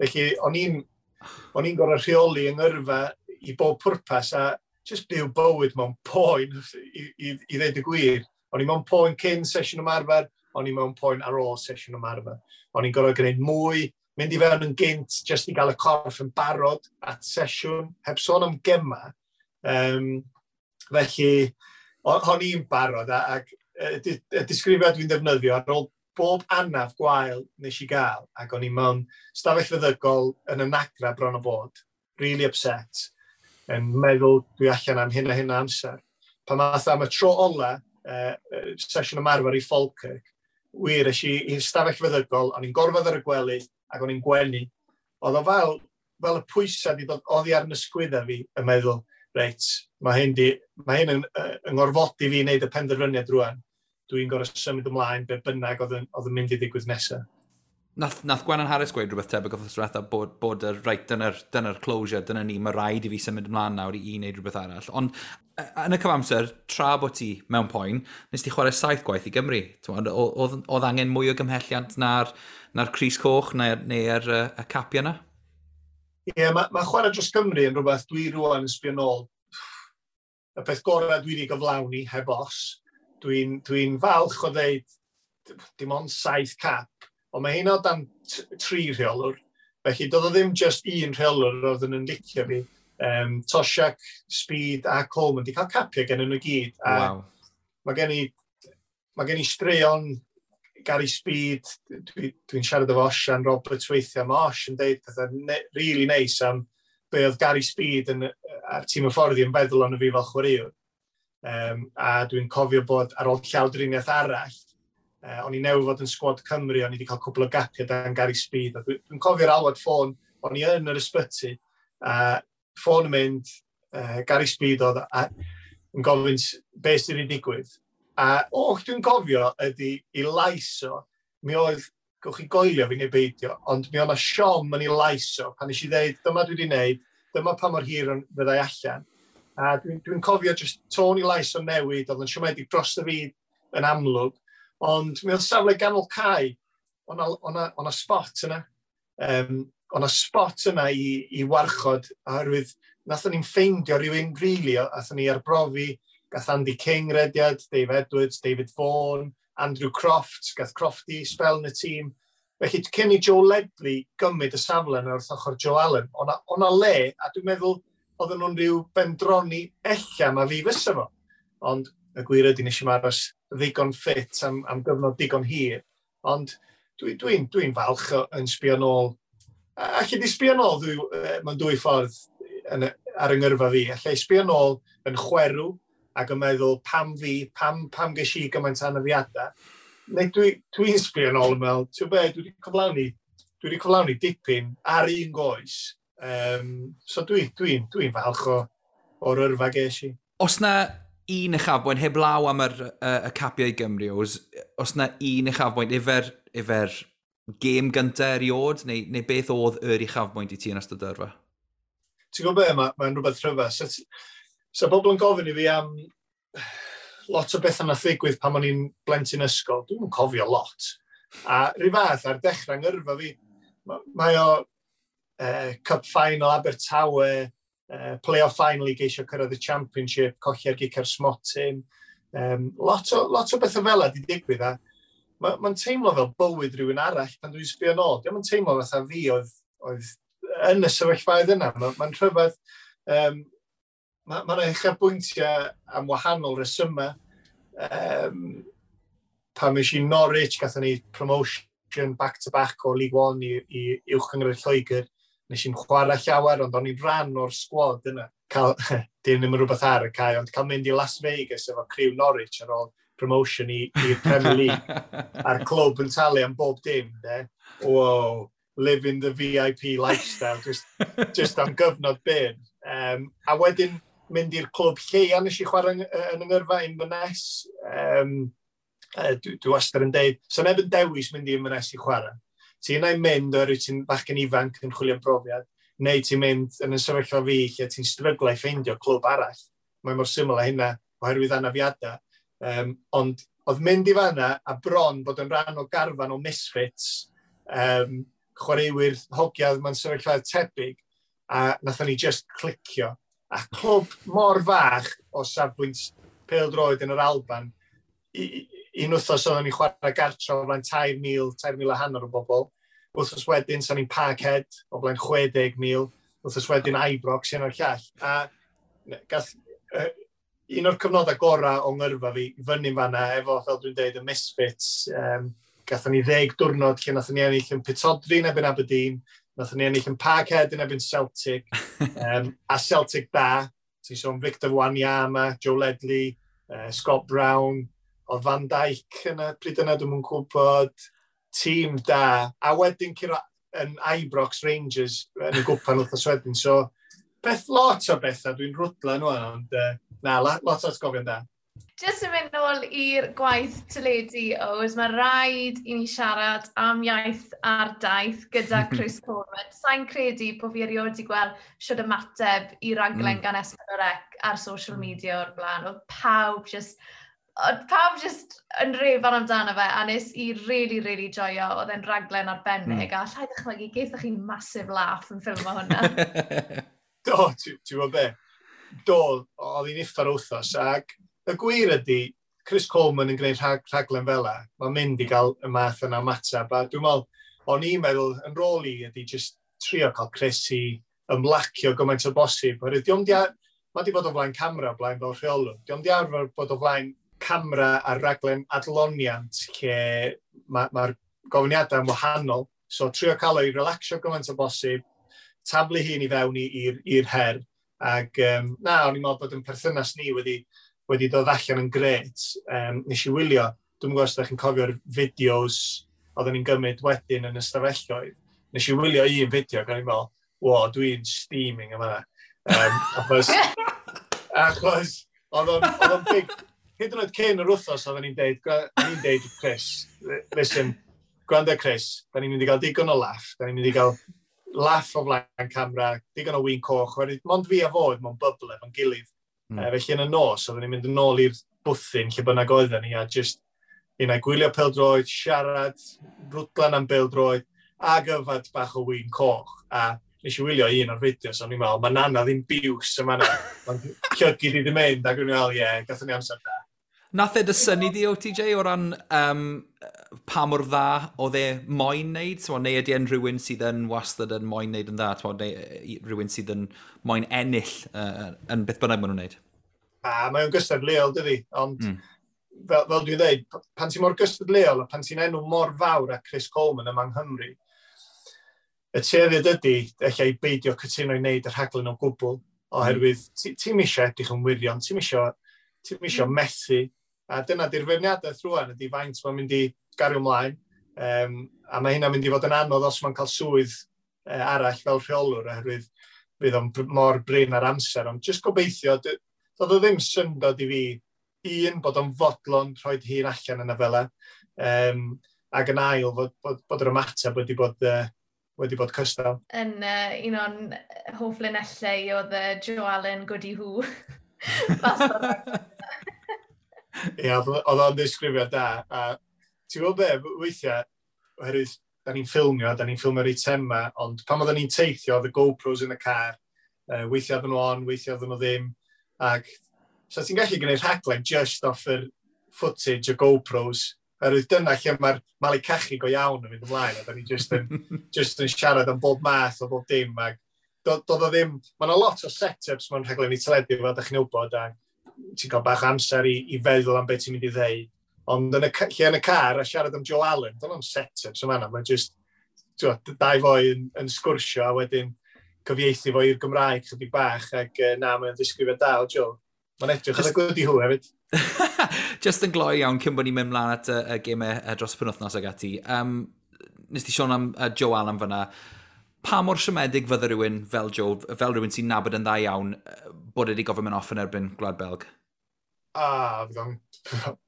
Felly o'n i'n gorfod rheoli yng ngyrfa i bob pwrpas a just byw bywyd mewn poen i ddeud y gwir. O'n i mewn poen cyn sesiwn ymarfer, o'n i mewn poen ar ôl sesiwn ymarfer. O'n i'n gorfod gwneud mwy, mynd i fewn yn gynt, jyst i gael y corff yn barod at sesiwn, heb sôn am gema. Felly, o'n i'n barod, ac y disgrifiad dwi'n defnyddio ar ôl bob anaf gwael nes i gael, ac o'n i mewn stafell feddygol yn y nagra bron o bod, really upset, yn meddwl dwi allan am hyn a hyn o amser. Pan math am y tro ola, sesiwn ymarfer i Falkirk, wir, es i i'r stafell feddygol, o'n i'n gorfod ar y gwely, ac o'n i'n gwenu. Oedd o fel y pwysau wedi dod oddi ar yn ysgwyddau fi, yn meddwl, reit, mae hyn yn ngorfodi fi i wneud y penderfyniad rwan. Dwi'n gorfod symud ymlaen be bynnag oedd yn mynd i ddigwydd nesaf. Nath Gwennan Harris gweud rhywbeth tebyg wrth diwetha bod y, right, dyna closure, dyna ni, mae rhaid i fi symud ymlaen nawr i wneud rhywbeth arall. Ond yn y cyfamser, tra bod ti mewn poen, nes ti chwarae saith gwaith i Gymru. Oedd angen mwy o gymhelliant na'r crys coch neu'r y capiau yna? Ie, yeah, mae chwarae dros Cymru yn rhywbeth dwi rwan yn sbio nôl. Y peth gorau dwi wedi gyflawni, heb os. Dwi falch o ddeud dim ond saith cap, ond mae hynna o dan tri rheolwr. Felly, doedd o ddim just un rheolwr oedd yn licio fi. Toshack, Speed a Coleman di cael capiau gen nhw gyd. A mae gen i straeon Gary Speed, dwi siarad efo Osian Roberts weithiau, mae Osh yn deud pethau really nice am be oedd Gary Speed a'r tîm hyfforddi yn feddwl ond fi fel chwaraewr. A dwi'n cofio bod ar ôl llawdriniaeth arall, o'n i newydd fod yn sgwad Cymru, o'n i wedi cael cwpl o gapiau dan Gary Speed. A dwi cofio'r alwad ffôn, o'n i yn yr ysbyty, a ffôn yn mynd, Gary Speed oedd a, yn gofyn beth sydd wedi digwydd. A oh, dwi'n cofio ydy i lais o, mi oedd, gewch chi goelio fi neu beidio, ond mi oedd 'na siom yn ei lais o, pan nes i ddeud, "Dyma dwi wedi wneud, dyma pa mor hir fyddai allan." A dwi cofio just tôn i lais o newid, oedd yn siomedig dros y fyd yn amlwg, ond mi oedd safle ganol cae, o'na spot yna. O'na spot yna i warchod, oherwydd nathon ni'n ffeindio rhywun rili, really, athon ni arbrofi, gath Andy King rediad, Dave Edwards, David Vaughan, Andrew Croft, gath Crofty spel yn y tîm. Felly, cyn i Joe Ledley gymryd y safle yna wrth ochr Joe Allen, o'na le, a dwi'n meddwl oedden nhw'n rhyw bendroni ella ma fi fysa fo. Ond y gwir ydy nes i'm aros ddigon ffit am gyfnod digon hir. Ond dwi'n dwi falch yn sbio nôl. Alli di sbio nôl mewn dwy ffordd ar yng ngyrfa fi. Alla i sbio nôl yn chwerw ac yn meddwl pam fi, pam ges i gymaint anafiadau. Neu dwi sbio nôl yn meddwl, ti'n be, dwi wedi cyflawni dipyn ar un goes. So dwi falch o'r yrfa ges i. Os na un uchafbwynt, heb law am y capiau i Gymru, os na un uchafbwynt, ifer gêm gyntaf eriod, neu beth oedd yr uchafbwynt i ti yn ystod yrfa? Ti'n gwybod be, mae'n rhywbeth rhyfedd. So bobl yn gofyn i fi am lot o bethau nath ddigwydd pan o'n i'n blentyn ysgol. Dwi'n cofio lot. A rhyw fath ar dechrau ngyrfa fi, mae o Cup Final Abertawe, play-off final i geisio cyrraedd y Championship, colli ar gic ar smotyn. Lot o bethau fel yna di digwydd a mae'n teimlo fel bywyd rhywun arall pan dwi'n sbio nôl. Dio'm yn teimlo fatha fi oedd yn y sefyllfaoedd yna. Mae'n rhyfedd. Mae yna uchafbwyntiau am wahanol resymau. Pan es i Norwich, gathon ni promotion back-to-back o League One i Uwch Gynghrair Lloegr. Nes i'n chwarae llawer, ond o'n i'n rhan o'r sgwad yna. Cael, dim ddim yn rhywbeth ar y cae, ond cael mynd i Las Vegas efo criw Norwich ar ôl promotion i'r Premier League. A'r clwb yn talu am bob dim, de. Wow, living the VIP lifestyle, just am gyfnod byr. A wedyn mynd i'r clwb lleia nes i chwarae yn yng ngyrfa, Inverness. Dwi wastad yn deud, so neb yn dewis mynd i Inverness i chwarae. Ti'n yna'n mynd oherwydd ti'n bachgen ifanc yn chwilio am brofiad, neu ti'n mynd yn y sefyllfa fi lle ti'n stryglo i ffeindio clwb arall. Mae mor syml â hynna oherwydd anafiadau. Ond oedd mynd i fanna a bron bod yn rhan o garfan o misfits, chwaraewyr hogiau mewn sefyllfa tebyg, a nathon ni just clicio. A clwb mor fach o safbwynt pêl-droed yn yr Alban, un wythnos oedden ni'n chwarae gartre o flaen 3,000, 3,500 o bobl. Wythnos wedyn, sa'n ni'n Parkhead o flaen 60,000. Wythnos wedyn Ibrox, un o'r llall. A gath, un o'r cyfnodau gorau o ngyrfa fi, fyny fanna, efo, fel dwi'n deud, y Misfits. Gathon ni 10 diwrnod lle nathon ni ennill yn Pittodrie yn erbyn Aberdeen, nathon ni ennill yn Parkhead yn erbyn Celtic, a Celtic da, ti'n sôn Victor Wanyama, Joe Ledley, Scott Brown, oedd Van Dijk yna, pryd yna dwi'n gwybod, tîm da, a wedyn curo yn Ibrox Rangers yn y gwpan wythnos wedyn, so beth lot o bethau, dwi'n rwdla nhw, ond na, lot o atgofion da. Jyst yn mynd nôl i'r gwaith teledu, Ows, mae rhaid i ni siarad am Iaith ar Daith gyda Chris Coleman. Sa'n credu bod fi erioed wedi gweld siwr ymateb i raglen gan S4C ar social media o'r blaen. Oedd pawb just yn rêfan amdano fe, a nes i really, really joio. Oedd e'n raglen arbennig, a allai ddychmygu, gaethoch chi massive laugh yn ffilmo hwnna. Do, ti'n gwybod be? Do, oedd hi'n uffar wythnos, ac y gwir ydy, Chris Coleman yn gwneud rhaglen fel 'a, mae'n mynd i gael y math yna ymateb. A dwi'n meddwl, o'n i'n meddwl, yn rôl i ydy just trio cael Chris i ymlacio gymaint o bosib. Oherwydd dio'm di, mae di bod o flaen camera o blaen fel rheolwr. Dio'm di arfer bod o flaen camera ar raglen adloniant lle mae'r ma gofyniadau yn wahanol. So trio cael o'i relaxio gymaint o bosib, taflu hun i fewn i'r her. Ac na, o'n i'n meddwl bod yn perthynas ni wedi dod allan yn gret. Nes i wylio, dwi'n gwybod os ydych chi'n cofio'r fideos oedden ni'n gymryd wedyn yn ystafelloedd. Nes i wylio un fideo ac o'n i'n meddwl, "Wo, dwi'n steaming yma." Achos oedd o'n big, hyd yn oed cyn yr wythnos oedden ni'n deud, o'n i'n deud, "Chris, listen, gwrando Chris, da ni'n mynd i gael digon o laff, da ni'n mynd i gael laff o flaen camera, digon o win coch," oherwydd mond fi a fo oedd mewn bubble efo'n gilydd. Felly yn y nos, oedden ni'n mynd yn ôl i'r bwthyn lle bynnag oedden ni, a just un ai gwylio pêl-droed, siarad, rwdlan am bêl-droed, ag yfad bach o win coch. A nes i wylio un o'r fideos, o'n i'n meddwl, mae nana ddim biws yma na. Mae'n llygid i ddim mynd, ac o'n i'n meddwl, ie, yeah, gathon ni amser da. Nath e dy synnu di, OTJ, o ran pa mor dda oedd e moyn neud? T'mo, neu ydy e'n rhywun sydd yn wastad yn moyn neud yn dda? T'mo, neu rhywun sydd yn moyn ennill yn beth bynnag maen nhw'n neud? A mae o'n gystadleuol, dydi? Ond fel dwi'n dweud, pan ti'n mor gystadleuol a pan ti'n enw mor fawr a Chris Coleman yma yng Nghymru, y tueddiad ydy, ella i beidio cytuno i wneud y rhaglen o gwbl, oherwydd ti'n eisiau edrych yn wirion, ti'n isio methu, a dyna di'r feirniadaeth rwan, ydy faint mae'n mynd i gario ymlaen, a mae hynna'n mynd i fod yn anodd os mae'n cael swydd arall fel rheolwr, oherwydd fydd o'n mor brin ar amser, ond jyst gobeithio, doedd o ddim syndod i fi, un, bod o'n fodlon rhoi hun allan yna fel ac yn ail, fod yr ymateb wedi bod cystal. Yn un o'n hoff linellau oedd Joe Allen, "Goody who." Fas o'r Ie, oedd o'n ddisgrifiad da. A ti'n gwybod be, weithiau, oherwydd da ni'n ffilmio'r eitemau, ond pan oedden ni'n teithio, oedd y GoPros yn y car, weithiau oedden nhw on, weithiau oedden nhw ddim, ac so ti'n gallu gwneud rhaglen just off yr footage o GoPros, oherwydd dyna lle mae'r malu cachu go iawn yn mynd ymlaen, a da ni just yn siarad am bob math o bob dim, ac doedd o ddim, mae yna lot o set-ups mewn rhaglen i teledu, fel da chi'n wybod, a ti'n cael bach o amser i feddwl am beth ti'n mynd i ddeud. Ond yn y, lle yn y car a siarad am Joe Allen, dyna am set-ups yma, mae'n just, ti'n dau foi yn sgwrsio a wedyn cyfieithu fo i'r Gymraeg chydig bach, ac na, mae'n ddisgrifiad da o Joe. Mae'n edrych yn y goody who hefyd. Just yn gloi iawn cyn bod ni'n mynd mlaen at y gemau dros penwthnos ag ati. Nes ti sôn am Joe Allen fyna. Pa mor siomedig fydde rhywun fel Joe, fel rhywun sy'n nabod yn dda iawn, bod wedi gofyn mynd off yn erbyn Gwlad Belg? Ah, fydd o'n...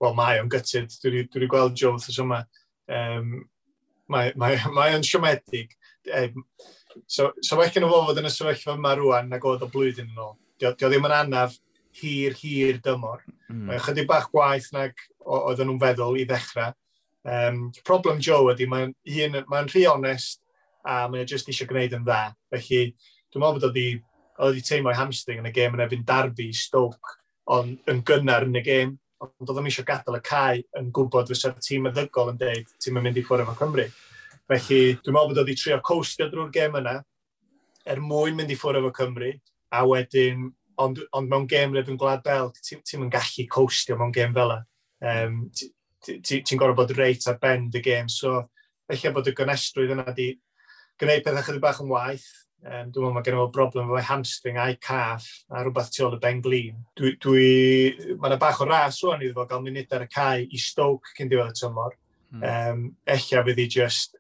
Wel, mae o'n gutted. Dwi wedi gweld Joe wrth yma. Mae o'n siomedig. So well gen fo fod yn y sefyllfa yma rwan nag oedd o blwyddyn yn ôl. Dio ddim yn anaf hir, hir dymor. Mae chydig bach gwaith nag oedden nhw'n feddwl i ddechrau. Problem Joe ydy, mae'n mae rhy onest a mae o jyst eisiau gwneud yn dda. Felly, dwi'n meddwl bod oedd wedi teimlo ei hamstring yn y gêm yn erbyn Derby, Stoke, ond yn gynnar yn y gêm. Ond oedd o'n eisiau gadael y cae yn gwybod fysa'r tîm meddygol yn deud, "Ti'n mynd i ffwrdd efo Cymru." Felly, dwi'n meddwl bod oedd wedi trio coastio drwy'r gêm yna, er mwyn mynd i ffwrdd efo Cymru, a wedyn, ond mewn gêm yn Gwlad Belg, ti'n ti yn gallu coastio mewn gêm fel yna. Ti'n ti, ti gorfod bod reit ar ben dy gêm, so felly bod y gonestrwydd yna di gwneud pethau chydig bach yn waith. Dwi'n meddwl mae gen i fo broblem efo hamstring a'i calf a rhywbeth tu ôl y ben glin. Mae yna bach o ras rwan iddo fo gael munud ar y cae i Stoke cyn diwedd y tymor. Ella fydd hi just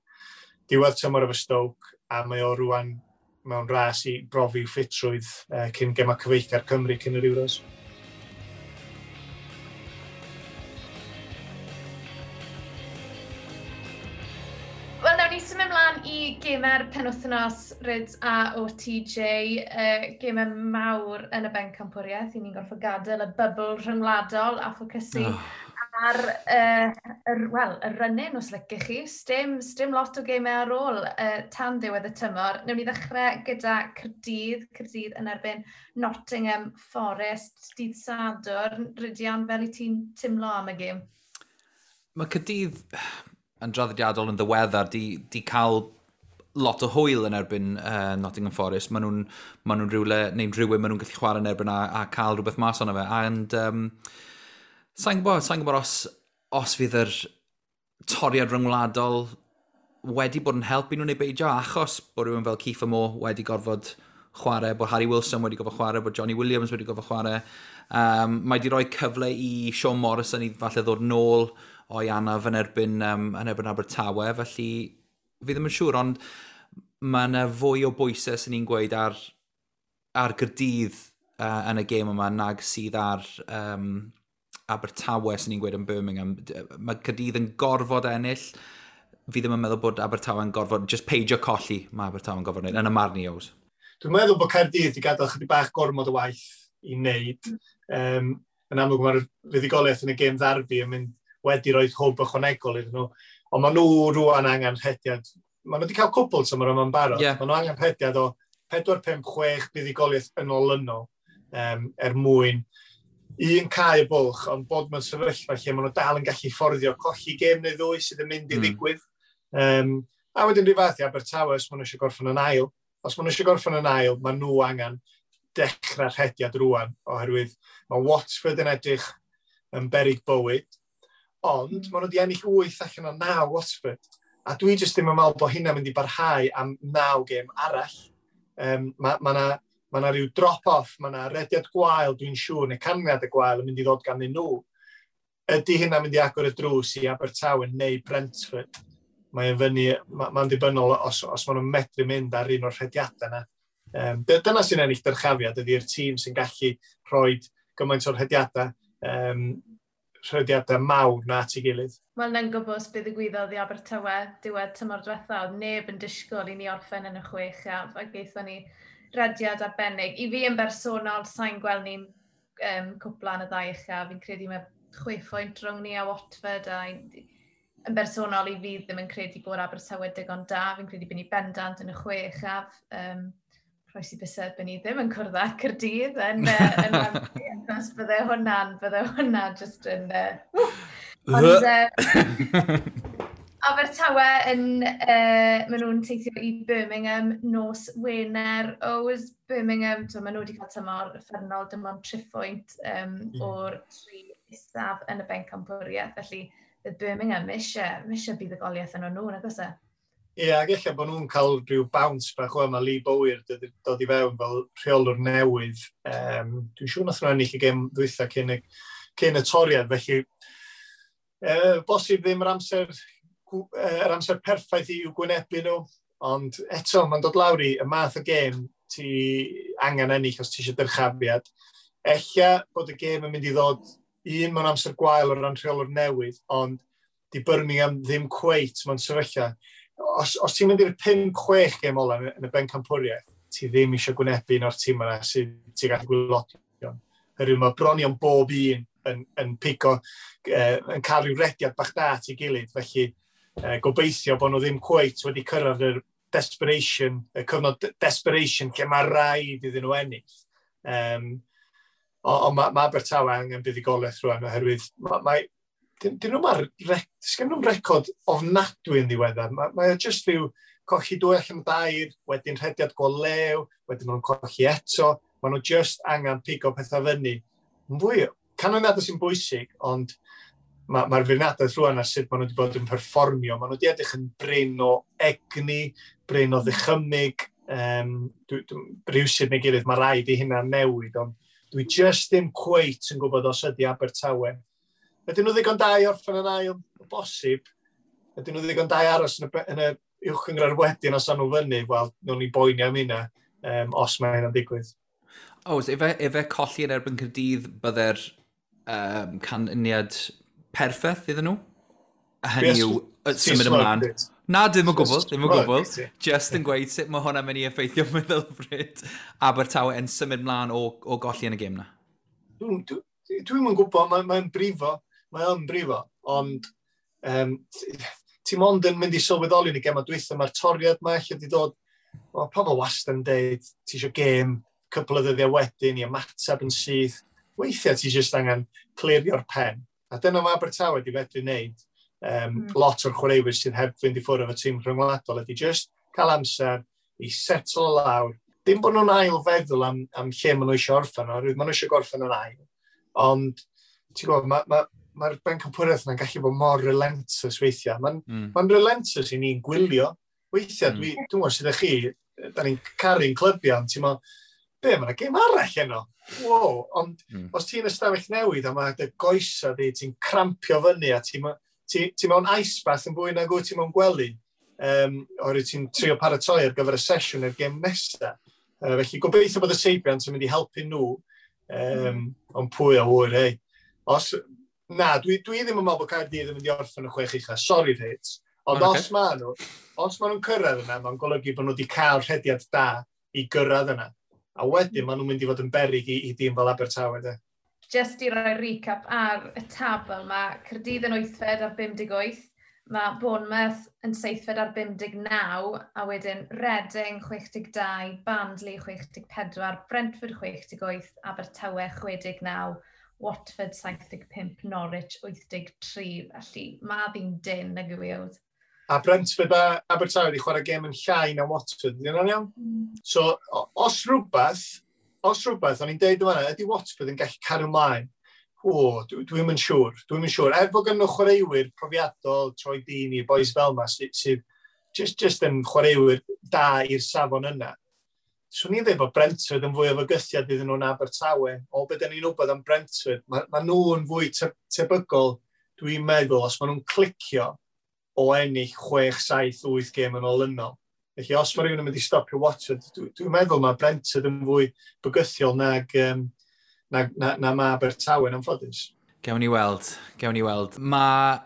diwedd tymor efo Stoke a mae o rwan mewn ras i brofi ffitrwydd cyn gema cyfeillgar Cymru cyn yr Euros. Wel, nawn ni symud ymlaen i gemau'r penwythnos, Ryd a OTJ, gemau mawr yn y bencampwriaeth. I ni'n gorfod gadael y bubble rhyngwladol a ffocysu ar well, y run-in, os licech chi. Sdim lot o gemau ar ôl tan ddiwedd y tymor. Newn ni ddechrau gyda Caerdydd, Caerdydd yn erbyn Nottingham Forest, dydd Sadwrn. Rhydian, fel i ti'n timlo am y gêm? Mae Caerdydd yn draddodiadol yn ddiweddar di cael lot o hwyl yn erbyn Nottingham Forest. Maen nhw'n ma nhw rhywle, neu'n rhywun maen nhw'n gallu chwarae yn erbyn a cael rhywbeth mas ono fe. And sa'n gwybod os fydd yr toriad ryngwladol wedi bod yn helpu nhw neu beidio, achos bod rhywun fel Kieffer Moore wedi gorfod chwarae, bod Harry Wilson wedi gorfod chwarae, bod Johnny Williams wedi gorfod chwarae. Mae wedi rhoi cyfle i Sean Morrison i falle ddod nôl o'i anaf yn erbyn Abertawe, felly fi ddim yn siŵr, ond mae yna fwy o bwysau sy'n ni'n gweud ar Gaerdydd yn y gêm yma nag sydd ar Abertawe sy'n ni'n gweud yn Birmingham. Mae Caerdydd yn gorfod ennill. Fi ddim yn meddwl bod Abertawe yn gorfod, just peidio colli mae Abertawe yn gorfod wneud, yn y marn i, Ows. Dwi'n meddwl bod Caerdydd wedi gadael chydig bach gormod o waith i wneud. Yn amlwg mae'r fuddugoliaeth yn y gêm ddarbi yn mynd wedi rhoi hwb ychwanegol iddyn nhw. Ond maen nhw rwan angen rhediad. Maen nhw wedi cael cwpl tymor yma'n barod. Maen nhw angen rhediad o 4, 5, 6 buddugoliaeth yn olynol er mwyn un cael y bwlch, ond bod mewn sefyllfa lle maen nhw dal yn gallu fforddio colli gêm neu ddwy sydd yn mynd i ddigwydd. A wedyn rhyw fath i Abertawe, os maen nhw eisiau gorffen yn ail. Os maen nhw eisiau gorffen yn ail, maen nhw angen dechrau rhediad rwan, oherwydd mae Watford yn edrych yn berig bywyd, ond maen nhw wedi ennill 8 allan o 9 Watford. A dwi jyst ddim yn meddwl bod hynna'n mynd i barhau am 9 gêm arall. Mae ma na rhyw drop-off, mae na rediad gwael, dwi'n siŵr, neu canlyniad y gwael yn mynd i ddod ganddyn nhw. Ydy hynna'n mynd i agor y drws i Abertawe neu Brentford? Mae'n fyny, mae'n dibynnol os maen nhw'n medru mynd ar un o'r rhediadau yna. Dyna sy'n ennill dyrchafiad, ydy'r tîm sy'n gallu rhoi gymaint o'r rhediadau mawr na at ei gilydd. Wel, na'n gwybod beth ddigwyddodd i Abertawe diwedd tymor diwetha, oedd neb yn disgwyl i ni orffen yn y chwech a gaethon ni rediad arbennig. I fi yn bersonol, sa'n gweld ni'n cwpla yn y ddau uchaf. Fi'n credu mae 6 phwynt rhwng ni a Watford a yn bersonol i fi ddim yn credu bod Abertawe digon da. Fi'n credu bod ni bendant yn y chwe uchaf. Rhoes i bysedd bod ni ddim yn cwrdd â Caerdydd yn Wembley, achos bydde hwnna just yn. Ond, Abertawe yn, maen nhw'n teithio i Birmingham nos Wener. Oes Birmingham, so maen nhw wedi cael tymor uffernol, dim ond 3 phwynt o'r tri isaf yn y bencampwriaeth. Felly, bydd Birmingham eisiau buddugoliaeth yn nhw, nag oes e? Ie, ac ella bod nhw'n cael rhyw bounce bach o yma Lee Bowyer dod i fewn fel rheolwr newydd. Dwi'n siŵr nath nhw ennill y gêm ddwytha cyn y toriad, felly bosib ddim yr amser perffaith i'w gwynebu nhw, ond eto mae'n dod lawr i y math o gêm ti angen ennill os ti eisiau dyrchafiad. Ella bod y gêm yn mynd i ddod un mewn amser gwael o ran rheolwr newydd, ond di Birmingham ddim cweit mewn sefyllfa. Os ti'n mynd i'r 5-6 gêm ola yn y bencampwriaeth, ti ddim eisiau gwynebu un o'r tîm yna sydd ti'n gallu gwaelodion. Herwydd mae bron iawn bob un yn pigo, yn cael rhyw rediad bach da at ei gilydd. Felly gobeithio bod nhw ddim cweit wedi cyrraedd yr desperation, y cyfnod desperation lle mae rhaid iddyn nhw ennill. Ond mae Abertawe angen buddugoliaeth rwan oherwydd dyn nhw'n sgen nhw'n record ofnadwy yn ddiweddar. Mae o just rhyw colli dwy allan o dair, wedyn rhediad go lew, wedyn maen nhw'n colli eto. Maen nhw just angen pigo pethau fyny. Yn fwy, canlyniadau sy'n bwysig, ond mae'r feirniadaeth rwan ar sut maen nhw wedi bod yn perfformio. Maen nhw wedi edrych yn brin o egni, brin o ddychymyg. Rhywsut neu gilydd, mae rhaid i hynna newid, ond dwi just ddim cweit yn gwybod os ydy Abertawe. Ydyn nhw ddigon da i orffen yn ail? O bosib. Ydyn nhw ddigon da i aros yn y uwch gynghrair wedyn os nhw fyny? Wel, nhw'n ni boeni am hynna os mae hynna'n digwydd. Oes, efe colli yn erbyn Caerdydd bydde'r canlyniad perffaith iddyn nhw? A hynny yw, symud ymlaen. Na, ddim o gwbl, ddim o gwbl. Just yn gweud sut mae hwnna'n mynd i effeithio meddylfryd Abertawe yn symud mlaen o golli yn y gêm na. Dwi'n dwi yn gwybod, mae'n mae brifo, mae o'n brifo, ond ti mond yn mynd i sylweddoli yn y gem dwytha, mae'r toriad ma lle di dod, mae pobl wastad yn deud, ti eisiau gêm cwpl o ddyddiau wedyn i ymateb yn syth. Weithiau ti jyst angen clirio'r pen. A dyna mae Abertawe wedi fedru wneud. Lot o'r chwaraewyr sydd heb fynd i ffwrdd efo tîm rhyngwladol ydy just cael amser i settle lawr. Dim bod nhw'n ail feddwl am lle maen nhw eisiau orffen, oherwydd maen nhw eisiau gorffen yn ail. Ond, ti'n gwybod, mae'r bencampwriaeth yna'n gallu bod mor relentless weithiau. Mae'n relentless i ni'n gwylio. Weithiau, dwi'n gwybod sydd â chi, da ni'n caru'n clybiau, ond ti'n meddwl, be, mae'n gêm arall heno? Wow, ond os ti'n ystafell newid a mae dy goesa di, ti'n crampio fyny a ti mewn ice bath yn fwy nag wyt ti mewn gwely, oherwydd ti'n trio paratoi ar gyfer y sesiwn i'r gêm nesaf. Felly gobeithio bod y seibiant yn mynd i helpu nhw, ond pwy a ŵyr, hei. Na, dwi ddim yn meddwl bod Caerdydd yn mynd i orffen y 6 ucha, sorry Rhys, ond os ma nhw'n cyrraedd yna, mae'n golygu bod nhw wedi cael rhediad da i gyrraedd yna. A wedyn maen nhw'n mynd i fod yn beryg i dîm fel Abertawe. De. Just i roi recap ar y tabl, mae Caerdydd yn 8fed ar 58, mae Bournemouth yn 7fed ar 59, a wedyn Reading 62, Barnsley 64, Brentford 68, Abertawe 69, Watford 75, Norwich 83. Felly mae ddi'n dyn nag yw i. A Brentford a Abertawe wedi chwarae gêm yn llai na Watford, ydy hwnna'n iawn? So, os rhywbeth, o'n i'n deud yma, ydy Watford yn gallu cario ymlaen? O, dwi'm yn siŵr, dwi'n siŵr. Er bod gen nhw chwaraewyr profiadol, Troy Deeney, boys fel yma, sydd just yn chwaraewyr da i'r safon yna. Swn i'n dweud bod Brentford yn fwy o fygythiad iddyn nhw'n Abertawe. O, be da ni'n wybod am Brentford, ma nhw'n fwy tebygol, dwi'n meddwl, os maen nhw'n clicio o ennill 6, 7, 8 gêm yn olynol. Felly, os mae rhywun yn mynd i stopio Watford, dwi'n meddwl mae Brentford yn fwy bygythiol nag na mae Abertawe yn anffodus. Gewn ni weld. Mae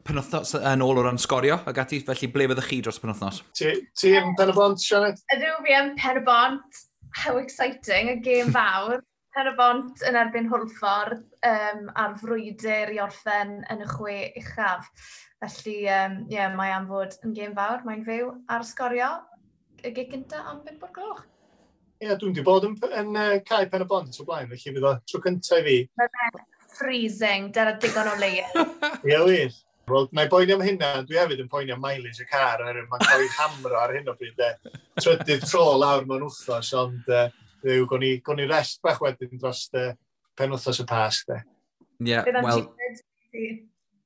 penwythnos yn ôl o ran sgorio ag ati, felly ble fyddwch chi dros penwythnos? Ti yn Pen-y-bont, Sioned? Ydw, fi yn Pen-y-bont. How exciting, y gêm fawr. Pen-y-bont yn erbyn Hwlffordd ar frwydr i orffen yn y 6 uchaf. Felly, mae am fod yn gêm fawr, mae'n fyw ar sgorio y gig gyntaf am 5 o'r gloch. Ie, dwi'n di bod yn cae Pen-y-bont o blaen, felly fydd o tro cyntaf i fi. Mae'n freezing, dyna digon o leia. Ie, wir. Wel, na i boeni am hynna, dwi hefyd yn poeni am mileage y car, oherwydd mae'n cael ei hamro ar hyn o bryd. Trydydd tro lawr mewn wythnos, ond gwn ni rest bach wedyn dros penwythnos y Pasg. Ie, wel,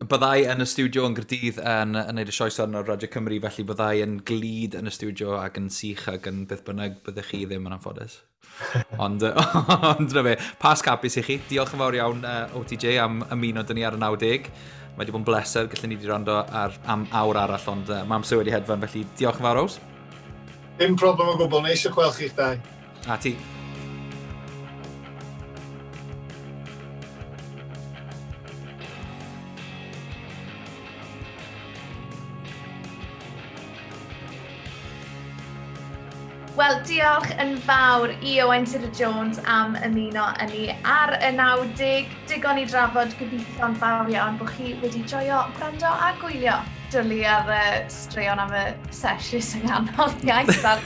byddai yn y stiwdio yn Gaerdydd yn neud y sioe sôn ar Radio Cymru, felly byddai yn glyd yn y stiwdio ac yn sych ac yn beth bynnag byddech chi ddim yn anffodus. Ond na fe, Pasg hapus i chi. Diolch yn fawr iawn OTJ am ymuno dyn ni ar y 90. Mae wedi bod yn bleser, gallwn ni wedi rando am awr arall, ond mae amser wedi hedfan, felly diolch yn fawr, Ows. Dim problem o gwbl, neis i gweld chi'ch dau. A ti. Wel, diolch yn fawr i Owain Tudur Jones am ymuno â ni ar y 90. Digon i drafod, gobeithio'n fawr iawn bod chi wedi joio gwrando a gwylio dwlu ar y straeon am y sesiws yng nghanol iaith ar.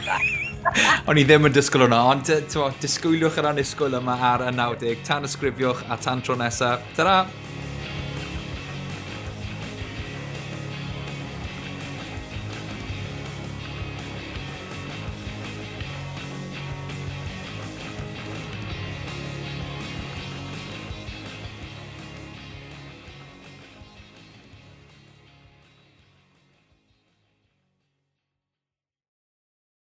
O'n i ddim yn disgwyl hwnna, ond disgwyliwch yr annisgwyl yma ar y 90. Tan ysgrifiwch a tan tro nesaf. Ta-ra!